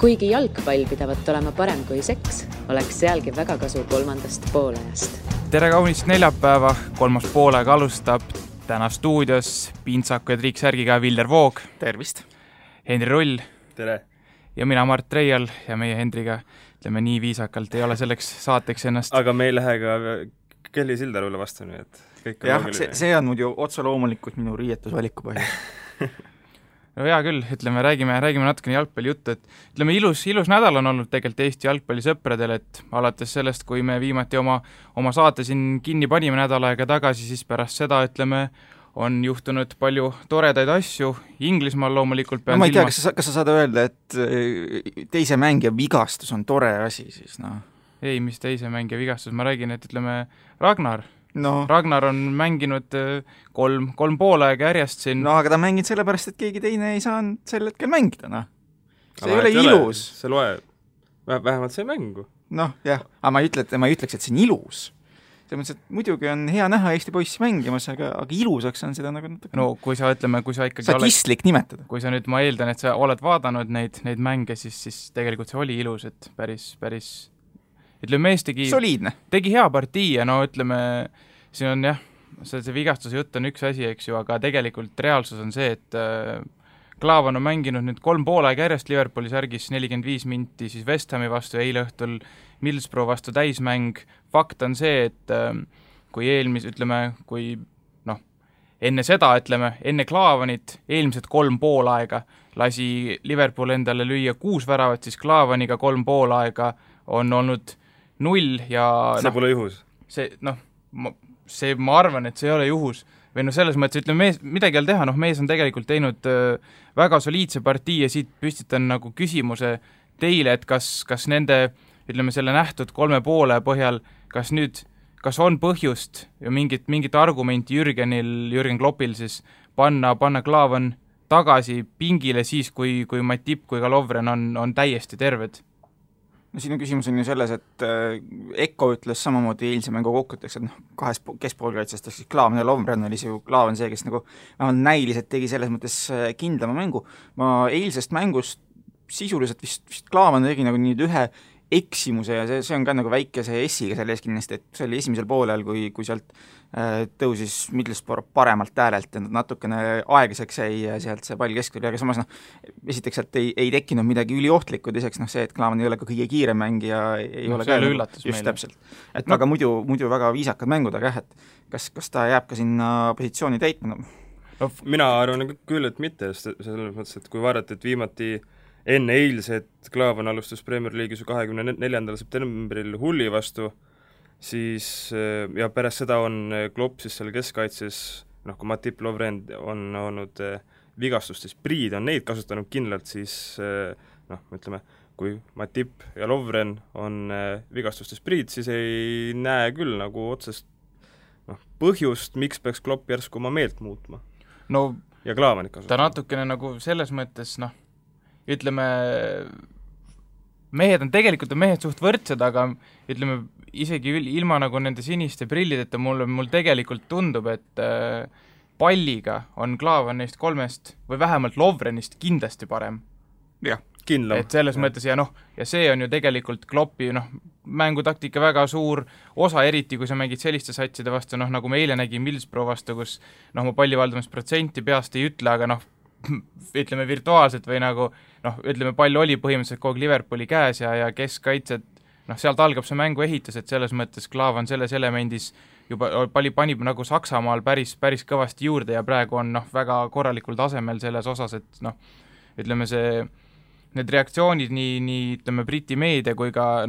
Kuigi jalgpall pidavat olema parem kui seks, oleks sealgi väga kasu kolmandast poolajast. Tere kaunist neljapäeva, kolmas poolaeg alustab. Täna stuudios Pintsaku ja Triiksärgiga Vilder Voog. Tervist. Henri Rull. Tere. Ja mina Mart Reial ja meie Hendriga, ütleme nii viisakalt, ei ole selleks saateks ennast. Aga me ei lähe ka Kelly Sildarule vastu, nii et kõik on loogiline. See on muidu otse loomulikult minu riietusvaliku põhjus. No hea küll, ütleme, räägime natukene jalgpalli juttu, et ütleme, ilus nädal on olnud tegelikult Eesti jalgpallisõpradel, et alates sellest, kui me viimati oma saate siin kinni panime nädal aega tagasi, siis pärast seda, ütleme, on juhtunud palju toredaid asju. Inglismaal loomulikult pean ma ei tea, kas sa saad öelda, et teise mängija vigastus on tore asi siis, noh? Ei, mis teise mängija vigastus, ma räägin, et ütleme, Ragnar on mänginud kolm poolaega järjest siin. No aga ta mängid sellepärast, et keegi teine ei saanud sel hetkel mängida, noh. See ei ole ilus. See loeb, vähemalt see mängu. Noh, jah, aga ma ei ütleks, et see on ilus. See mõttes, et muidugi on hea näha Eesti poissi mängimas, aga ilusaks on seda nagu natuke. No kui sa ikkagi statistlik nimetada. Kui sa nüüd, ma eeldan, et sa oled vaadanud neid mänge, siis tegelikult see oli ilus, et päris ütleme, mees tegi hea partii ja no ütleme, siin on jah, see vigastuse jutt on üks asi, eks ju, aga tegelikult reaalsus on see, et Klaavan on mänginud nüüd 3 poolaeg järjest Liverpooli särgis 45 minti siis West Hami vastu ja eile õhtul Middlesbrough vastu täismäng. Fakt on see, et kui enne Klaavanit eelmised 3 poolaega lasi Liverpool endale lüüa 6 väravat, siis Klaavaniga 3 poolaega on olnud 0 ja see pole juhus. Ma arvan, et see ei ole juhus. Või selles mõttes, ütleme, midagi ei ole teha, mees on tegelikult teinud väga soliidse partii ja siit püstitan nagu küsimuse teile, et kas nende, ütleme, selle nähtud 3 poole põhjal, kas on põhjust ja mingit argumenti Jürgen Kloppil siis panna Klaavan tagasi pingile siis, kui Matip kui ka Lovren on täiesti terved? No sinu küsimus on ju selles, et Eko ütles samamoodi eilse mängu kokkuteks, et kahes keskpoolkaitsest, siis Klaavan ja Lovren oli see ju Klaavan see, kes nagu näiliselt tegi selles mõttes kindlama mängu. Ma eilsest mängust sisuliselt vist Klaavan tegi nagu nüüd ühe eksimuse ja see on ka nagu väikese S-iga selle ees kindlasti, et see oli esimesel poolel, kui sealt tõusis Middlesbrough paremalt äärelt ja natukene aeglaseks jäi sealt see pall keskvõrli, aga samas esiteks sealt ei tekkinud midagi üliohtlikku, teiseks see, et Klaavan ei ole ka kõige kiirem mängija, ei ole ka üllatus just täpselt. Et aga muidu väga viisakad mängud, aga kas ta jääb ka sinna positsiooni täitma? No, mina arvan küll, et mitte, selles mõttes, et kui vaadata, et viimati enne eilset Klaavan alustas Premier League'is 24. septembril Hulli vastu, siis ja pärast seda on Klopp siis seal keskkaitses, kui Matip Lovren on olnud vigastustes, Priid on neid kasutanud kindlalt, siis ütleme, kui Matip ja Lovren on vigastustes Priid, siis ei näe küll nagu otsest põhjust, miks peaks Klopp järsku oma meelt muutma. Ja Klaavanit kasutama. Ta natukene nagu selles mõttes, ütleme, mehed suht võrdsed, aga ütleme, isegi ilma nagu nende siniste prillideta mul tegelikult tundub, et palliga on Klaavan neist 3 või vähemalt Lovrenist kindlasti parem. Jah, kindlam. Et selles mõttes ja see on ju tegelikult Kloppi mängutaktika väga suur osa, eriti kui sa mängid selliste satside vastu, nagu me eile nägin Middlesbrough vastu, kus ma pallivaldamusprotsenti peast ei ütle, aga ütleme virtuaalselt või ütleme, pall oli põhimõtteliselt kogu Liverpooli käes ja keskkaitsed, sealt algab see mängu ehitus, et selles mõttes Klaavan selles elemendis juba panib nagu Saksamaal päris kõvasti juurde ja praegu on väga korralikul tasemel selles osas, et ütleme need reaktsioonid nii ütleme Briti meedia kui ka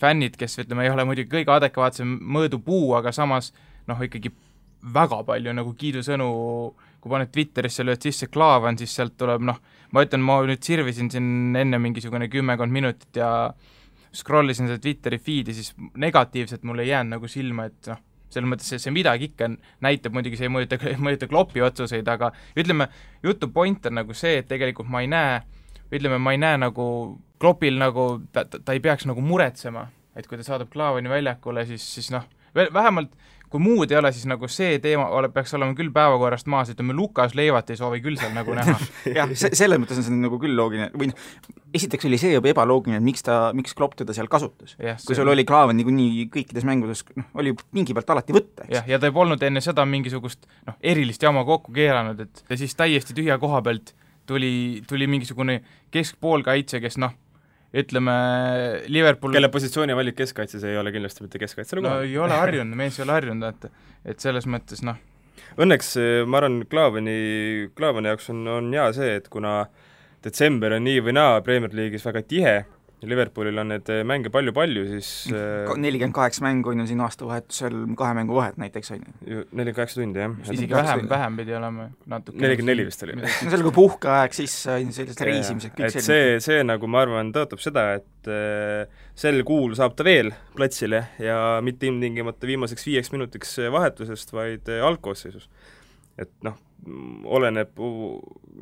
fännid, kes ütleme ei ole muidugi kõige adekvaatsem mõõdupuu, aga samas ikkagi väga palju nagu kiidusõnu, kui paned Twitterisse lööd sisse Klaavan, siis sealt tuleb, ma nüüd sirvisin siin enne mingisugune 10 minutit ja scrollisin seda Twitteri feedi, siis negatiivselt mulle ei jäänud nagu silma, et selles mõttes see midagi ikka näitab, muidugi see ei mõjuta Kloppi otsuseid, aga ütleme, jutu point on nagu see, et tegelikult ma ei näe nagu Kloppil ta ei peaks nagu muretsema, et kui ta saadab Klaavani väljakule, siis vähemalt kui muud ei ole, siis nagu see teema peaks olema küll päevakorrast maas, ütleme Lukas Leivat ei soovi küll seal nagu näha. Jah, selles mõttes on see nagu küll loogiline, või esiteks oli see juba ebaloogiline, et miks Klopp teda seal kasutas. Kui sul oli Klaavan niikuinii kõikides mängudes, oli pingi pealt alati võtta, eks. Ja ta ei polnud enne seda mingisugust erilist jama kokku keeranud, et ja siis täiesti tühja koha pealt tuli mingisugune keskpoolkaitse, kes ütleme Liverpool kelle positsiooni valik keskkaitses ei ole kindlasti mitte keskkaitse ei ole harjunud, mees ei ole harjunud, et selles mõttes Õnneks ma arvan, Klaavani jaoks on hea see, et kuna detsember on nii või naa Premier League'is väga tihe, Liverpoolil on need mänge palju-palju, siis 48 mängu on ju siin aastavahetusel 2 mängu vahet näiteks, on ju. 48 tundi, jah. Isegi vähem pidi olema natuke. 44 vist oli. No see oli kui puhkeaeg, siis sellised reisimised, kõik selline. See nagu ma arvan tõotab seda, et sel kuul saab ta veel platsile ja mitte ilmtingimata viimaseks 5 minutiks vahetusest, vaid algkoosseisus. Et oleneb,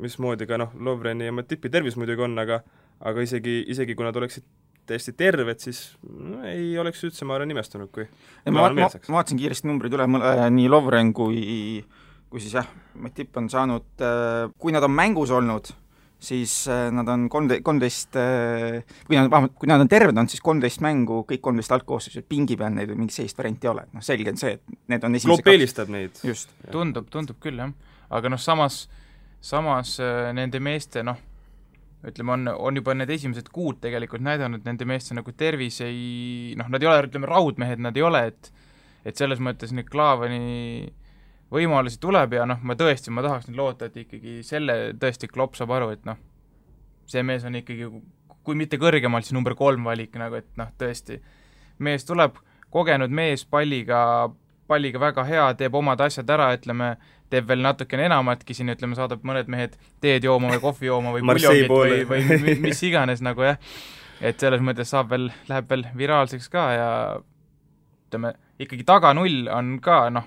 mismoodi ka Lovreni ja Matipi tervis muidugi on, aga isegi kui nad oleksid täiesti terved, siis ei oleks üldse, ma arvan, nimestunud, kui ma vaatasin kiiresti numbrid üle, nii Lovren kui siis Matip on saanud, kui nad on mängus olnud, siis nad on 13, kui nad on terved olnud, siis 13 mängu, kõik 13 algkoosseisud, pingi peal neid mingi sellist varianti ei ole, selge on see, et need on Klopp eelistab neid. Just. Tundub küll, jah. Aga samas nende meeste, ütleme, on juba need esimesed kuud tegelikult näidanud, nende meeste tervis ei, nad ei ole, ütleme, raudmehed nad ei ole, et selles mõttes nüüd Klaavani võimalusi tuleb ja ma tahaks nüüd loota, et ikkagi selle tõesti Klopp saab aru, et see mees on ikkagi, kui mitte kõrgemalt, siis number 3 valik, et tõesti, mees tuleb, kogenud mees, palliga väga hea, teeb omad asjad ära, ütleme, teeb veel natukene enamatki siin, ütleme, saadab mõned mehed teed jooma või kohvi jooma või puljongit või mis iganes jah. Et selles mõttes läheb veel viraalseks ka ja ütleme, ikkagi taga 0 on ka,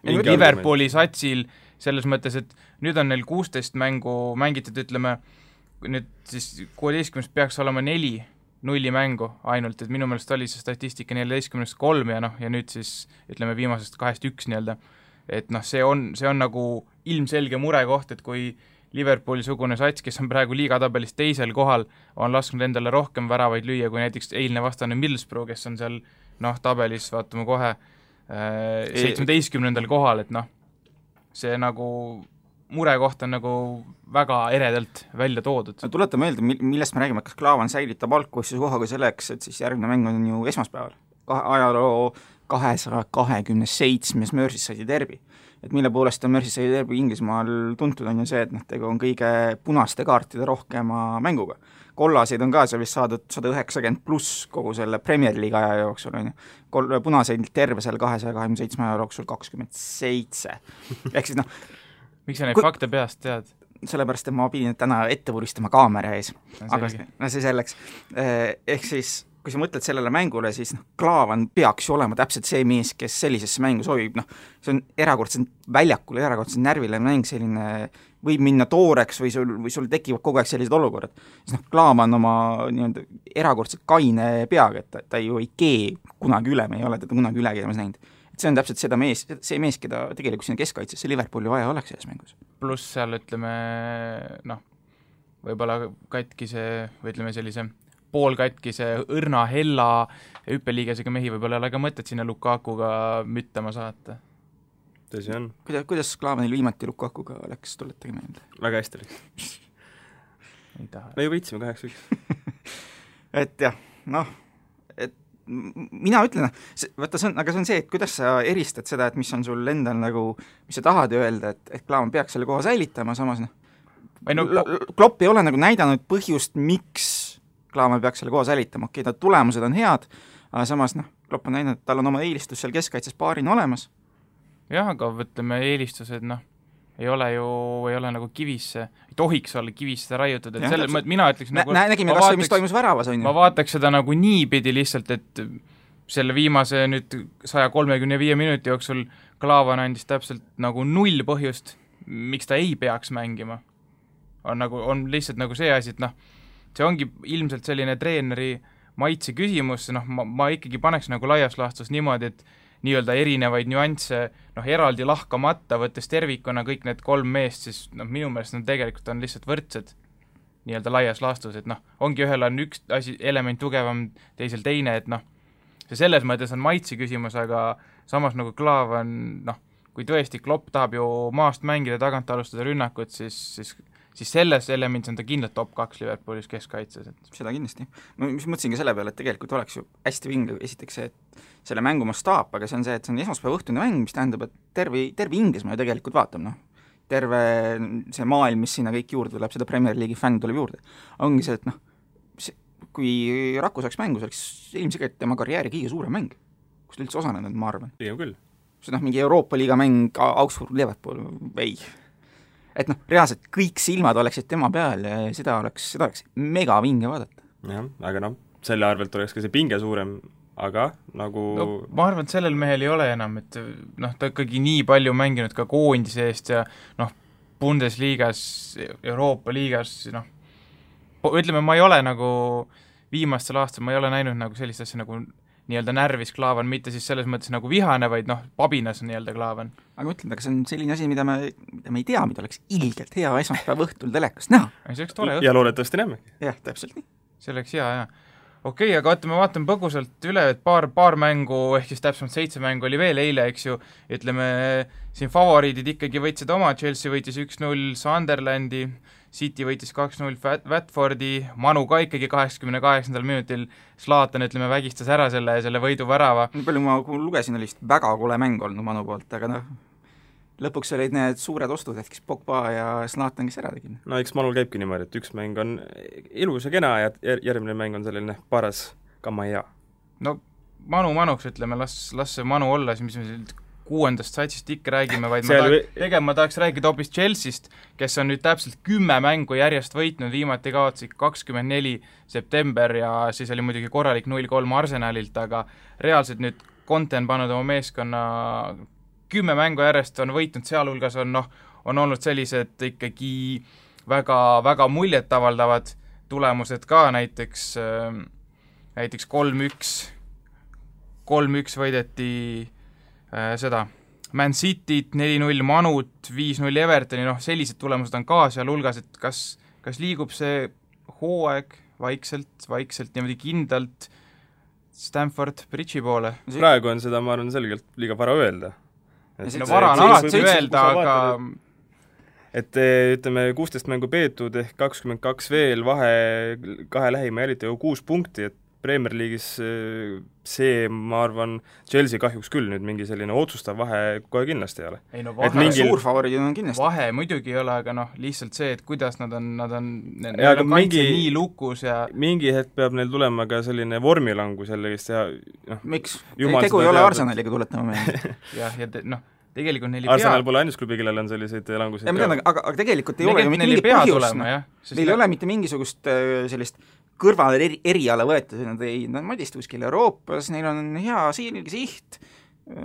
Liverpooli satsil selles mõttes, et nüüd on neil 16 mängu mängitud, ütleme, nüüd siis 16 peaks olema 4 mängu ainult, et minu meelest oli see statistika 14-3 ja nüüd siis ütleme viimasest 2-1 nii-öelda, et see on nagu ilmselge murekoht, et kui Liverpooli-sugune sats, kes on praegu liigatabelis teisel kohal, on lasknud endale rohkem väravaid lüüa kui näiteks eilne vastane Middlesbrough, kes on seal tabelis, vaatame kohe 17. kohal, et see nagu murekoht on nagu väga eredalt välja toodud. Tuleta meelde, millest me räägime, kas Klaavan säilitab algkoosseisu kohaga selleks, et siis järgmine mäng on ju esmaspäeval. Ajaloo 227. Merseyside derbi. Et mille poolest on Merseyside derbi Inglismaal tuntud on ju see, et tegu on kõige punaste kaartide rohkema mänguga. Kollaseid on ka seal vist saadud 190 pluss kogu selle Premier League aja jooksul on ju. Punaseid terve seal 227 aja jooksul 27. Ehk siis miks sa neid fakte peast tead? Sellepärast, et ma pidin täna ette vuristama kaamera ees. Aga see selleks. Ehk siis kui sa mõtled sellele mängule, siis Klaavan peaks ju olema täpselt see mees, kes sellisesse mängu sobib, see on erakordselt väljakul, erakordselt närvile mäng, selline võib minna tooreks või sul tekivad kogu aeg sellised olukorrad. Siis Klaavan oma erakordselt kaine peaga, et ta ju ei kee kunagi üle, me ei ole teda kunagi üle keemas näinud. Et see on täpselt see mees, keda tegelikult sinna keskkaitsesse Liverpooli vaja oleks selles mängus. Pluss seal, ütleme, võib-olla katkise, või ütleme sellise poolkatkise õrna hella hüppeliigesega mehi võib-olla ei ole ka mõtet sinna Lukakuga müttama saata. Tõsi on. Kuidas Klaavanil viimati Lukakuga läks, tuletage meelde? Väga hästi läks. Ei taha. Me ju võitsime 8-1. Et jah, mina ütlen, vaata aga see on see, et kuidas sa eristad seda, et mis on sul endal nagu, mis sa tahad öelda, et Klaavan peaks selle koha säilitama, samas Klopp ei ole nagu näidanud põhjust, miks Klaavan peaks selle koha säilitama, ta tulemused on head, aga samas Klopp on näidanud, et tal on oma eelistus seal keskkaitses paarina olemas. Jah, aga võtleme eelistused, ei ole nagu kivisse, ei tohiks olla kivisse raiutud, et selle mõttes mina ütleks nägime kas või, mis toimus väravas, on ju. Ma vaataks seda nagu niipidi lihtsalt, et selle viimase nüüd 135 minuti jooksul Klaavan andis täpselt nagu 0 põhjust, miks ta ei peaks mängima. On lihtsalt nagu see asi, et see ongi ilmselt selline treeneri maitse küsimus, ma ikkagi paneks nagu laias laastus niimoodi, et nii-öelda erinevaid nüansse, eraldi lahkamata, võttes tervikuna kõik need 3 meest, siis minu meelest nad tegelikult on lihtsalt võrdsed. nii-öelda laias laastus, et noh, ongi ühel on üks asi, element tugevam, teisel teine, et noh, see selles mõttes on maitsi küsimus, aga samas nagu Klaav on, noh, kui tõesti Klopp tahab ju maast mängida, tagant alustada rünnakut, siis selles elemendis on ta kindlalt top 2 Liverpoolis keskkaitses. Seda kindlasti. Ma mõtlesin ka selle peale, et tegelikult oleks ju hästi vinge esiteks see, et selle mängu mastaap, aga see on see, et see on esmaspäeva õhtune mäng, mis tähendab, et terve Inglismaa ju tegelikult vaatab, noh. Terve see maailm, mis sinna kõik juurde tuleb, seda Premier League'i fänn tuleb juurde. Ongi see, et noh, kui Raku saaks mängu, see oleks ilmselt tema karjääri kõige suurem mäng, kus ta üldse osanenud, ma arvan. Pigem küll. See noh, mingi Euroopa Liiga mäng, Augsburg, Liverpool, ei. Et noh, reaalselt kõik silmad oleksid tema peal ja seda oleks mega vinge vaadata. Jah, aga noh, selle arvelt oleks ka see pinge suurem, aga nagu ma arvan, et sellel mehel ei ole enam, et noh, ta ikkagi nii palju mänginud ka koondise eest ja noh, Bundesliigas, Euroopa liigas, noh, ütleme, ma ei ole nagu viimastel aastal, ma ei ole näinud nagu sellist asja nagu nii-öelda närvis Klaavan, mitte siis selles mõttes nagu vihane, vaid noh, pabinas nii-öelda Klaavan. Aga mõtlen, aga see on selline asi, mida me ei tea, mida oleks ilgelt hea esmaspäeva õhtul telekast näha. See oleks tore ja loodetavasti näemegi. Jah, täpselt nii. See oleks hea, jah. Okei, aga vaatame põgusalt üle, et paar mängu, ehk siis täpsemalt 7 mängu oli veel eile, eks ju, ütleme, siin favoriidid ikkagi võitsid oma, Chelsea võitis 1-0 Sunderlandi, City võitis 2-0 Watfordi, Manu ka ikkagi 88. minutil Zlatan, ütleme, vägistas ära selle võiduvärava. Nii palju ma lugesin, oli vist väga kole mäng olnud Manu poolt, aga noh, lõpuks olid need suured ostud, et kes Pogba ja Zlatan, kes ära tegid. No eks Manul käibki niimoodi, et üks mäng on ilus ja kena ja järgmine mäng on selline paras kamaja. No Manuks, ütleme, las see Manu olla, mis me 6. satsist ikka räägime, vaid ma tahaks rääkida hoopis Chelseast, kes on nüüd täpselt 10 mängu järjest võitnud, viimati kaotsi 24 september ja siis oli muidugi korralik 0-3 Arsenalilt, aga reaalselt nüüd Conte on pannud oma meeskonna 10 mängu järjest on võitnud, sealhulgas on olnud sellised ikkagi väga, väga muljet avaldavad tulemused ka, näiteks 3-1 võideti seda Man Cityt, 4-0 Manut, 5-0 Evertoni, noh, sellised tulemused on ka sealhulgas, et kas liigub see hooaeg vaikselt niimoodi kindlalt Stamford Bridge'i poole? Praegu on seda, ma arvan, selgelt liiga vara öelda. Vara on alati öelda, aga et ütleme, 16 mängu peetud ehk 22 veel, vahe kahe lähima jälita ju 6 punkti, et Premier League'is see, ma arvan, Chelsea kahjuks küll nüüd mingi selline otsustav vahe kohe kindlasti ei ole. Ei no vahe, suur favoriid on kindlasti. Vahe muidugi ei ole, aga noh, lihtsalt see, et kuidas nad on kaitse nii lukus ja mingi hetk peab neil tulema ka selline vormilangus jällegi ja noh, miks? Tegu ei ole Arsenaliga, tuletama meelde. jah, ja tegelikult neil Arsenal pole ainus klubi, kellel on selliseid languseid. Aga tegelikult ei ole ju mitte mingit põhjust. Neil ei ole mitte mingisugust sellist kõrvale eriala võetud, nad madist kuskil Euroopas, neil on hea siht,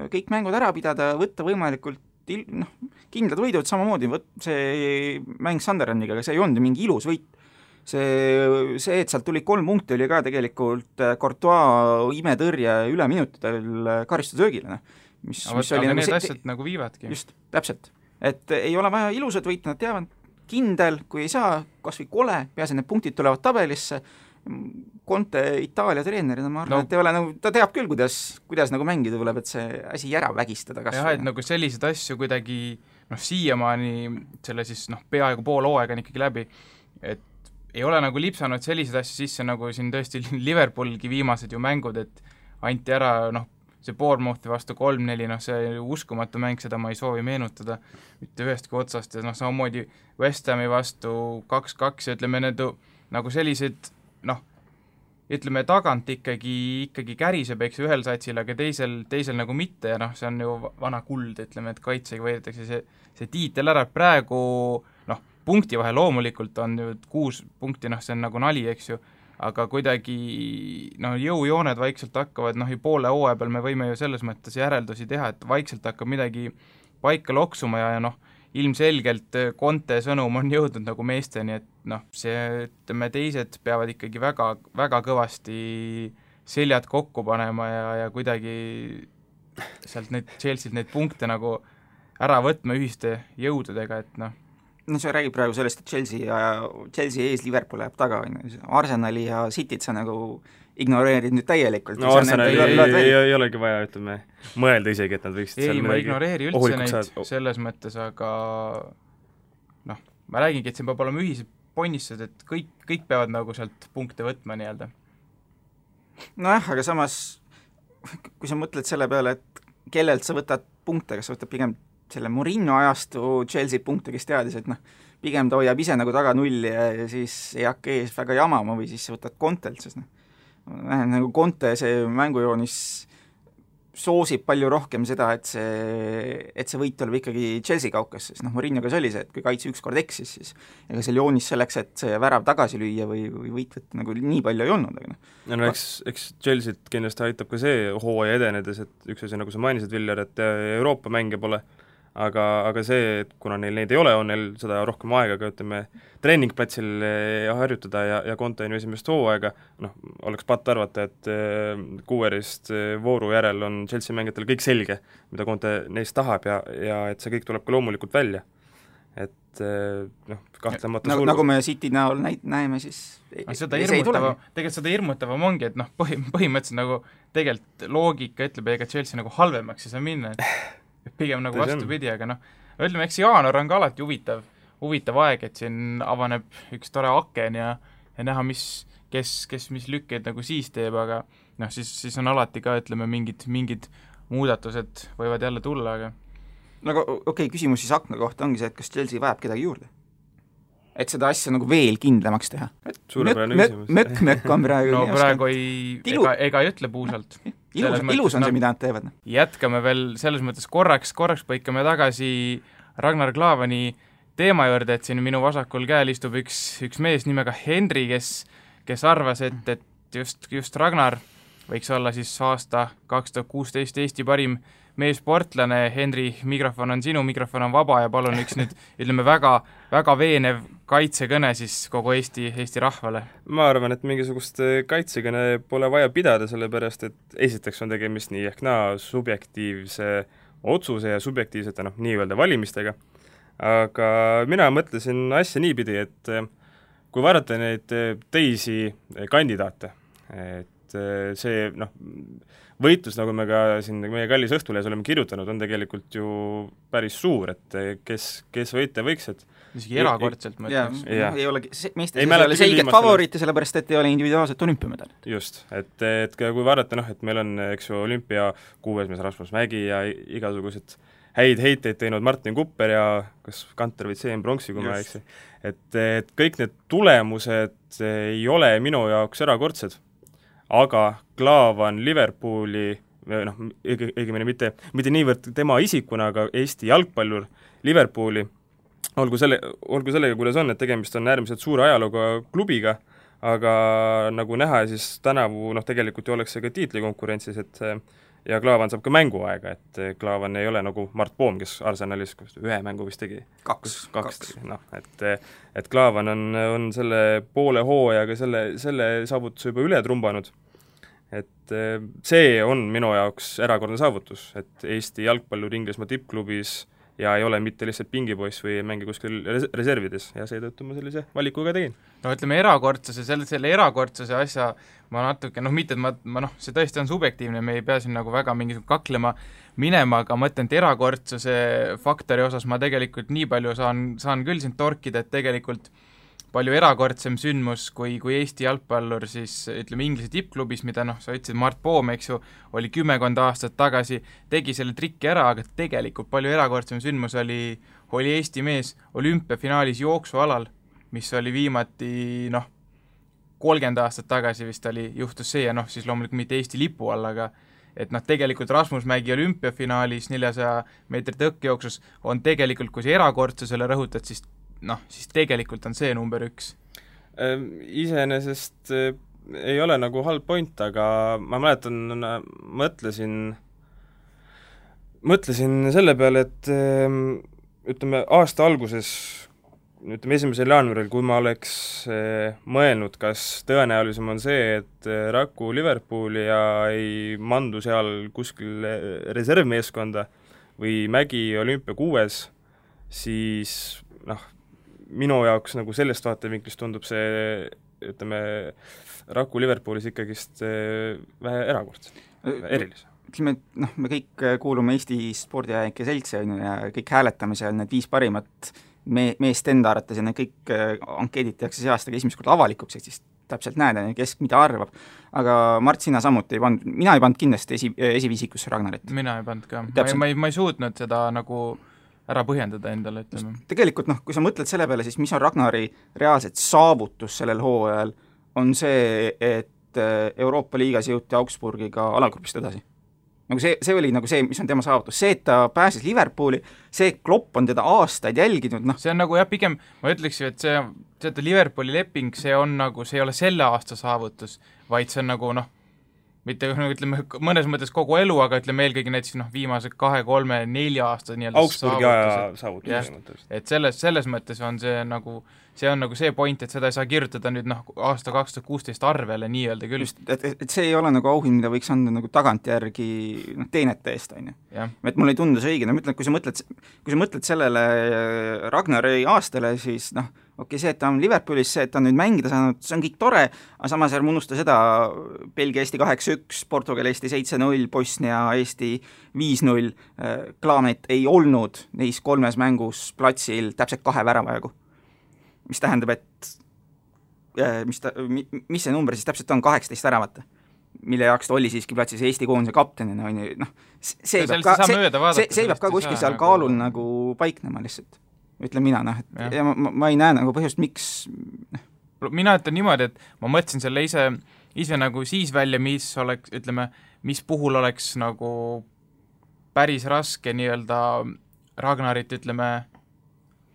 kõik mängud ära pidada, võtta võimalikult kindlad võidud, samamoodi see mäng Sunderlandiga, aga see ei olnud mingi ilus võit. See, et sealt tuli 3 punkti, oli ka tegelikult Courtois imetõrje üle minutidel karistusöögile, mis oli aga need asjad nagu viivadki. Just, täpselt. Et ei ole vaja ilusad võit, nad teavad kindel, kui ei saa, kas või kole, peaasi need punktid tulevad tabelisse, Conte Itaalia treenerina, ma arvan, et ei ole, ta teab küll, kuidas nagu mängida tuleb, et see asi ära vägistada kas jah, et nagu selliseid asju kuidagi siiamaani selle siis peaaegu pool hooaega on ikkagi läbi, et ei ole nagu lipsanud selliseid asju sisse, nagu siin tõesti Liverpoolgi viimased ju mängud, et anti ära see Bournemouthi vastu 3-4, see uskumatu mäng, seda ma ei soovi meenutada mitte ühestki otsast ja samamoodi West Hami vastu 2-2 ja ütleme, need nagu sellised ütleme, tagant ikkagi käriseb, eks ühel satsil, aga teisel nagu mitte ja see on ju vana kuld, ütleme, et kaitsega võidetakse see tiitel ära, praegu punkti vahe loomulikult on ju 6 punkti, see on nagu nali, eks ju, aga kuidagi jõujooned vaikselt hakkavad, poole hooaja peal me võime ju selles mõttes järeldusi teha, et vaikselt hakkab midagi paika loksuma ja ilmselgelt Conte sõnum on jõudnud nagu meesteni, et see, ütleme, teised peavad ikkagi väga, väga kõvasti seljad kokku panema ja kuidagi sealt Chelsea't neid punkte nagu ära võtma ühiste jõududega, et no sa räägid praegu sellest, et Chelsea ees Liverpool jääb taga, Arsenali ja Cityt sa nagu ignoreerid nüüd täielikult. No Arsenali ei olegi vaja, ütleme, mõelda isegi, et nad võiksid ei, ma ignoreeri üldse neid selles mõttes, aga noh, ma räägingi, et siin peab olema ühised ponnistused, et kõik peavad nagu sealt punkte võtma nii-öelda. Nojah, aga samas kui sa mõtled selle peale, et kellelt sa võtad punkte, kas sa võtad pigem selle Mourinho ajastu Chelsea punkte, kes teadis, et noh, pigem ta hoiab ise nagu taga nulli ja siis ei hakka ees väga jamama või siis sa võtad Contelt, sest noh, nagu Conte see mängujoonis soosib palju rohkem seda, et see võit tuleb ikkagi Chelsea kaukas, sest noh, Mourinhoga see oli see, et kui kaitse ükskord eksis, siis ega seal joonis selleks, et see värav tagasi lüüa või võit võtta nagu nii palju ei olnud, aga noh. Ja no eks Chelsea't kindlasti aitab ka see hooaja edenedes, et üks asi, nagu sa mainisid, Viljar, et Euroopa mänge pole, aga see, et kuna neil neid ei ole, on neil seda rohkem aega ka, ütleme, treeningplatsil harjutada ja Conte on ju esimest hooaega, noh, oleks patt arvata, et kuuerist vooru järel on Chelsea mängijatel kõik selge, mida Conte neist tahab ja et see kõik tuleb ka loomulikult välja. Et noh, kahtlemata nagu me City näol näeme, siis tegelikult seda hirmutavam ongi, et noh, põhimõtteliselt nagu tegelikult loogika ütleb, ega Chelsea nagu halvemaks ei saa minna, et pigem nagu vastupidi, aga noh, ütleme, eks jaanuar on ka alati huvitav aeg, et siin avaneb üks tore aken ja näha, kes mis lükkeid nagu siis teeb, aga noh, siis on alati ka, ütleme, mingid muudatused võivad jälle tulla, aga nagu okei, küsimus siis akna kohta ongi see, et kas Chelsea vajab kedagi juurde? Et seda asja nagu veel kindlamaks teha. Suurepärane küsimus. Mökk on praegu no praegu ega ei ütle puusalt. Ilus on see, mida nad teevad. Jätkame veel selles mõttes korraks põikame tagasi Ragnar Klavani teema juurde, et siin minu vasakul käel istub üks mees nimega Henri, kes arvas, et just Ragnar võiks olla siis aasta 2016 Eesti parim meessportlane. Henri, mikrofon on sinu, mikrofon on vaba ja palun üks nüüd, ütleme, väga veenev kaitsekõne siis kogu Eesti rahvale. Ma arvan, et mingisugust kaitsekõne pole vaja pidada, sellepärast et esiteks on tegemist nii ehk naa subjektiivse otsuse ja subjektiivsete nii-öelda valimistega, aga mina mõtlesin asja niipidi, et kui vaadata neid teisi kandidaate, et see võitlus, nagu me ka siin meie kallis Õhtulehes oleme kirjutanud, on tegelikult ju päris suur, et kes võita võiks, et isegi erakordselt ma ütleks. Ei ole, meestes ei ole selget favoriiti, sellepärast et ei ole individuaalset olümpiamedalit. Just, et kui vaadata, et meil on, eks ju, olümpia kuuesmees Rasmus Mägi ja igasugused häid heiteid teinud Martin Kupper ja kas Kanter või CM Bronksi, kui ma eksi. Et kõik need tulemused ei ole minu jaoks erakordsed, aga Klavan Liverpooli, õigemini mitte niivõrd tema isikuna, aga Eesti jalgpallur Liverpooli, olgu sellega, kuidas on, et tegemist on äärmiselt suure ajalooga klubiga, aga nagu näha, siis tänavu tegelikult ju oleks see ka tiitlikonkurentsis, et ja Klavan saab ka mänguaega, et Klavan ei ole nagu Mart Poom, kes Arsenalis ühe mängu vist tegi. Kaks. Et Klavan on selle poole hooajaga selle saavutuse juba üle trumbanud. Et see on minu jaoks erakordne saavutus, et Eesti jalgpallur Inglismaa tippklubis ja ei ole mitte lihtsalt pingipoiss või mängi kuskil reservides ja seetõttu ma sellise valiku ka tegin. No ütleme, selle erakordsuse asja ma natuke, mitte et ma see tõesti on subjektiivne, me ei pea siin nagu väga mingisugune kaklema minema, aga ma ütlen, et erakordsuse faktori osas ma tegelikult nii palju saan küll siin torkida, et tegelikult palju erakordsem sündmus kui Eesti jalgpallur siis ütleme Inglise tippklubis, mida sa ütlesid, Mart Poom, eks ju, oli 10 aastat tagasi, tegi selle trikki ära, aga tegelikult palju erakordsem sündmus oli Eesti mees olümpiafinaalis jooksualal, mis oli viimati 30 aastat tagasi vist juhtus see ja siis loomulikult mitte Eesti lipu all, aga et tegelikult Rasmus Mägi olümpiafinaalis 400 meetri tõkkejooksus on tegelikult, kui see erakordsusele rõhutad, siis tegelikult on see number 1. Iseenesest ei ole nagu halb point, aga ma mäletan, mõtlesin selle peale, et ütleme aasta alguses, 1. jaanuaril, kui ma oleks mõelnud, kas tõenäolisem on see, et Raku Liverpooli ja ei mandu seal kuskil reservmeeskonda või Mägi olümpia 6, siis minu jaoks nagu sellest vaatevinklist tundub see, ütleme, Raku Liverpoolis ikkagist vähe erakordselt, erilise. Ütleme, et noh, me kõik kuulume Eesti spordiajalike seltsi on ju, ja kõik hääletame seal need 5 parimat meest enda arvates ja need kõik ankeedid tehakse see aastaga esimest korda avalikuks, et siis täpselt näed, kes mida arvab. Aga Mart, sina samuti mina ei pannud kindlasti esiviisikusse Ragnarit. Mina ei pannud ka. Ma ei suutnud seda nagu ära põhjendada endale, ütleme. Tegelikult kui sa mõtled selle peale, siis mis on Ragnari reaalselt saavutus sellel hooajal, on see, et Euroopa liigas jõuti Augsburgiga alagrupist edasi. Nagu see oli nagu see, mis on tema saavutus. See, et ta pääses Liverpooli, see Klopp on teda aastaid jälginud, noh. See on nagu jah, pigem ma ütleksin, et see Liverpooli leping, see on nagu, see ei ole selle aasta saavutus, vaid see on nagu noh, mitte ütleme mõnes mõttes kogu elu, aga ütleme eelkõige näiteks viimase 2, 3, 4 aasta Augsburgi aja saavutus. Et selles mõttes on see nagu see point, et seda ei saa kirjutada nüüd aasta 2016 arvele nii-öelda küll. Just, et see ei ole nagu auhind, mida võiks anda nagu tagantjärgi teenete eest, on ju. Et mulle ei tundu see õige, ma ütlen, kui sa mõtled sellele Ragnari aastale, siis see, et ta on Liverpoolis, see, et ta on nüüd mängida saanud, see on kõik tore, aga samas ärme unusta seda Belgia Eesti 8-1, Portugal Eesti 7-0, Bosnia Eesti 5-0, Klaamet ei olnud neis 3 mängus platsil täpselt 2 väravajagu. Mis tähendab, et mis see number siis täpselt on 18 väravat, mille jaoks ta oli siiski platsis Eesti koondise kaptenina, on ju, see peab ka kuskil seal kaalul nagu paiknema lihtsalt, ütlen mina, ja ma ei näe nagu põhjust, miks mina ütlen niimoodi, et ma mõtlesin selle ise nagu siis välja, mis oleks, ütleme, mis puhul oleks nagu päris raske nii-öelda Ragnarit, ütleme,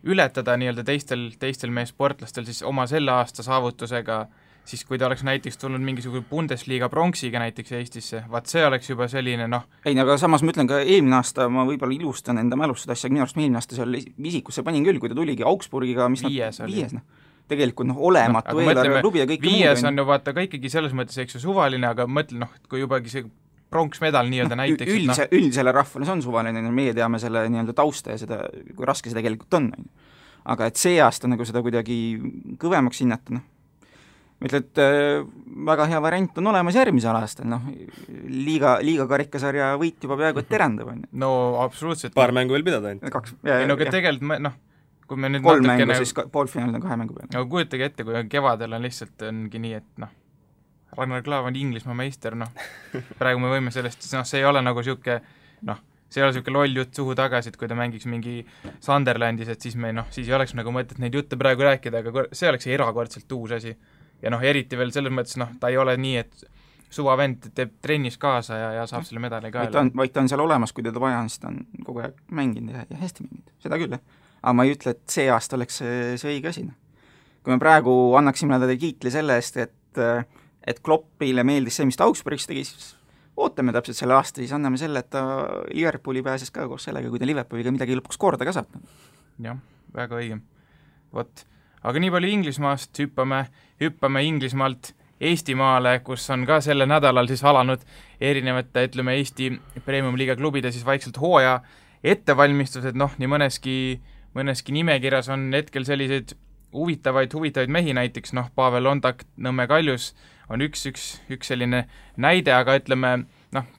ületada nii-öelda teistel meie sportlastel siis oma selle aasta saavutusega, siis kui ta oleks näiteks tulnud mingisugune Bundesliga pronksiga näiteks Eestisse, vaat see oleks juba selline Ei, aga samas ma ütlen ka eelmine aasta, ma võib-olla ilustan enda mälust asja, minu arust eelmine aasta seal visikusse panin küll, kui ta tuligi Augsburgiga, mis viies tegelikult olematu eelarve klubi ja kõik viies on ju vaata ka ikkagi selles mõttes, eks ju, suvaline, aga mõtle, kui jubagi see pronksmedal nii-öelda näiteks. Üldisele rahvale see on suvaline, meie teame selle nii-öelda tausta ja seda, kui raske see tegelikult on. Aga et see aasta nagu seda kuidagi kõvemaks hinnata, ma ütlen, et väga hea variant on olemas järgmisel aastal, liiga karikasarja võit juba peaaegu et terendab. No absoluutselt. Paar mängu veel pidada ainult. Tegelikult kui me nüüd 3 mängu, siis poolfinaalid on 2 mängu peal. Aga kujutage ette, kui kevadel on lihtsalt ongi nii, et Ragnar Klav on Inglismaa meister, praegu me võime sellest, see ei ole nagu siuke, see ei ole siuke loll jutt suhu tagasi, et kui ta mängiks mingi Sunderlandis, et siis siis ei oleks nagu mõtet neid jutte praegu rääkida, aga see oleks erakordselt uus asi. Ja eriti veel selles mõttes, ta ei ole nii, et suvavend teeb trennis kaasa ja saab selle medali kaela. Vaid ta on seal olemas, kui teda vaja on, siis ta on kogu aeg mänginud ja hästi mänginud, seda küll. Aga ma ei ütle, et see aasta oleks see õige asi. Kui me praegu annaksime talle kiitli selle eest, et Kloppile meeldis see, mis ta Augsburgis tegi, siis ootame täpselt selle aasta, siis anname selle, et ta Liverpooli pääses ka koos sellega, kui ta Liverpooliga midagi lõpuks korda ka saab. Jah, väga õige. Aga nii palju Inglismaast, hüppame Inglismaalt Eestimaale, kus on ka selle nädalal siis alanud erinevate, ütleme, Eesti Premium-liiga klubide siis vaikselt hooaja ettevalmistused, nii mõneski nimekirjas on hetkel selliseid huvitavaid mehi, näiteks Pavel Londak, Nõmme Kaljus on üks selline näide, aga ütleme,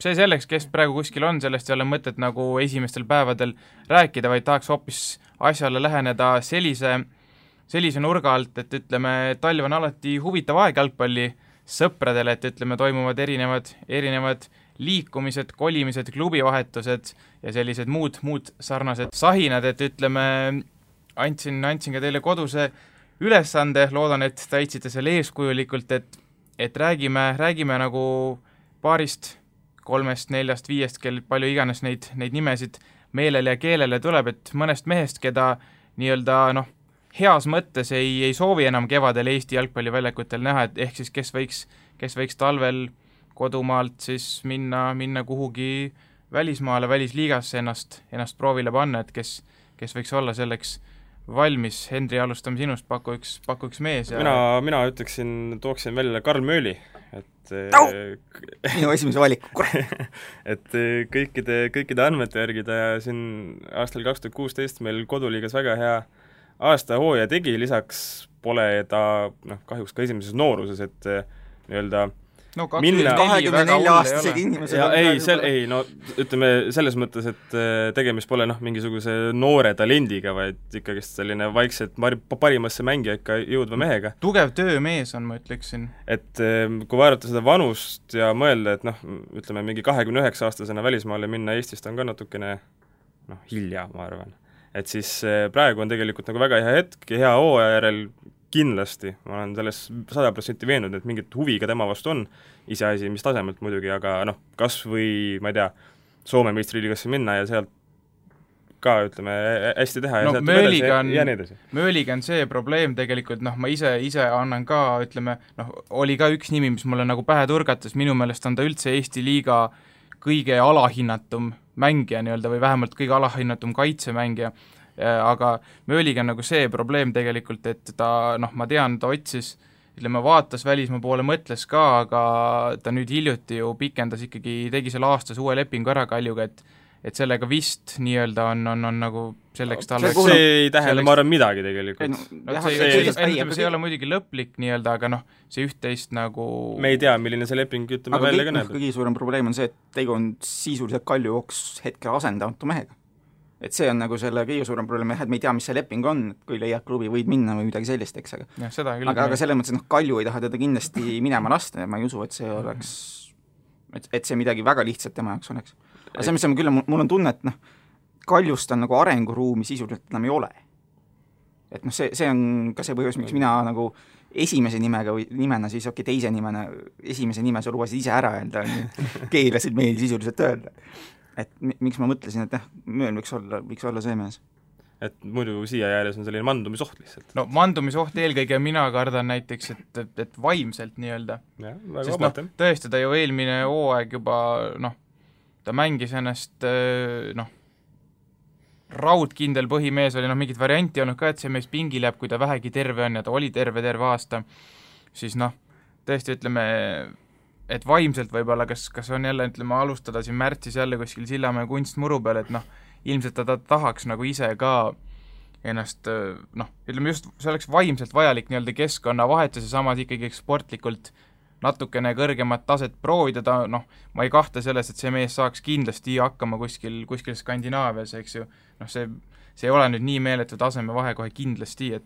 see selleks, kes praegu kuskil on, sellest ei ole mõtet nagu esimestel päevadel rääkida, vaid tahaks hoopis asjale läheneda sellise nurga alt, et ütleme, talv on alati huvitav aeg jalgpalli sõpradele, et ütleme, toimuvad erinevad liikumised, kolimised, klubivahetused ja sellised muud sarnased sahinad, et ütleme, andsin ka teile koduse ülesande, loodan, et täitsite selle eeskujulikult, et räägime nagu 2, 3, 4, 5, kel palju iganes neid nimesid meelele ja keelele tuleb, et mõnest mehest, keda nii-öelda heas mõttes ei soovi enam kevadel Eesti jalgpalliväljakutel näha, et ehk siis kes võiks talvel kodumaalt siis minna kuhugi välismaale, välisliigasse ennast proovile panna, et kes võiks olla selleks valmis. Henri, alustame sinust, paku üks mees. Ja mina tooksin välja Karl Mööli, et minu esimese valiku, et kõikide andmete järgi ta siin aastal 2016 meil koduliigas väga hea aasta hooaja tegi, lisaks pole ta kahjuks ka esimeses nooruses, et nii-öelda no 24-aastasega inimesega ütleme selles mõttes, et tegemist pole mingisuguse noore talendiga, vaid ikkagist selline vaikselt parimasse mängija ikka jõudva mehega. Tugev töömees on, ma ütleksin. Et kui vaadata seda vanust ja mõelda, et ütleme mingi 29-aastasena välismaale minna Eestist on ka natukene hilja, ma arvan. Et siis praegu on tegelikult nagu väga hea hetk ja hea hooaja järel kindlasti, ma olen selles 100% veenud, et mingit huvi ka tema vastu on, iseasi, mis tasemelt muidugi, aga kas või, ma ei tea, Soome meistriliigasse minna ja sealt ka, ütleme, hästi teha ja sealt ja nii edasi. Mööliga on see probleem tegelikult, ma ise annan ka, ütleme, oli ka üks nimi, mis mulle nagu pähe turgatas, minu meelest on ta üldse Eesti liiga kõige alahinnatum mängija nii-öelda või vähemalt kõige alahinnatum kaitsemängija, aga Mööliga on nagu see probleem tegelikult, et ta, ma tean, ta otsis, ütleme, vaatas välismaa poole, mõtles ka, aga ta nüüd hiljuti ju pikendas ikkagi, tegi selle aastas uue lepingu ära Kaljuga, et sellega vist nii-öelda on nagu selleks talle see ei tähenda, ma arvan, midagi tegelikult. See ei ole muidugi lõplik nii-öelda, aga see üht-teist nagu me ei tea, milline see leping ütleme välja ka näeb. Kõige suurem probleem on see, et tegu on sisuliselt Kalju jooks hetkel asendamatu mehega. Et see on nagu selle kõige suurem probleem, et me ei tea, mis see leping on, et kui leiad klubi, võid minna või midagi sellist, eks, aga selles mõttes, et Kalju ei taha teda kindlasti minema lasta ja ma ei usu, et see oleks, et see midagi väga lihtsalt tema jaoks oleks. Aga see, mis on küll, mul on tunne, et Kaljust on nagu arenguruumi sisuliselt enam ei ole. Et see on ka see põhjus, miks mina nagu esimese nimega või nimena siis teise nimena, esimese nime sa lubasid ise ära öelda, keelasid meil sisuliselt öelda. Et miks ma mõtlesin, et Mööl võiks olla see mees. Et muidu siia jääles on selline mandumisoht lihtsalt. No mandumisoht eelkõige mina kardan näiteks, et vaimselt nii-öelda. Sest tõesti, ta ju eelmine hooaeg juba, ta mängis ennast, raudkindel põhimees oli, mingit varianti olnud ka, et see mees pingil jääb, kui ta vähegi terve on ja ta oli terve aasta, siis tõesti ütleme, et vaimselt võib-olla, kas on jälle, ütleme, alustada siin märtsis jälle kuskil Sillamäe kunstmuru peal, et ilmselt ta tahaks nagu ise ka ennast, ütleme just, see oleks vaimselt vajalik nii-öelda keskkonnavahetus ja samas ikkagi sportlikult natukene kõrgemat taset proovida, ma ei kahtle selles, et see mees saaks kindlasti hakkama kuskil Skandinaavias, eks ju, see ei ole nüüd nii meeletu taseme vahe kohe kindlasti, et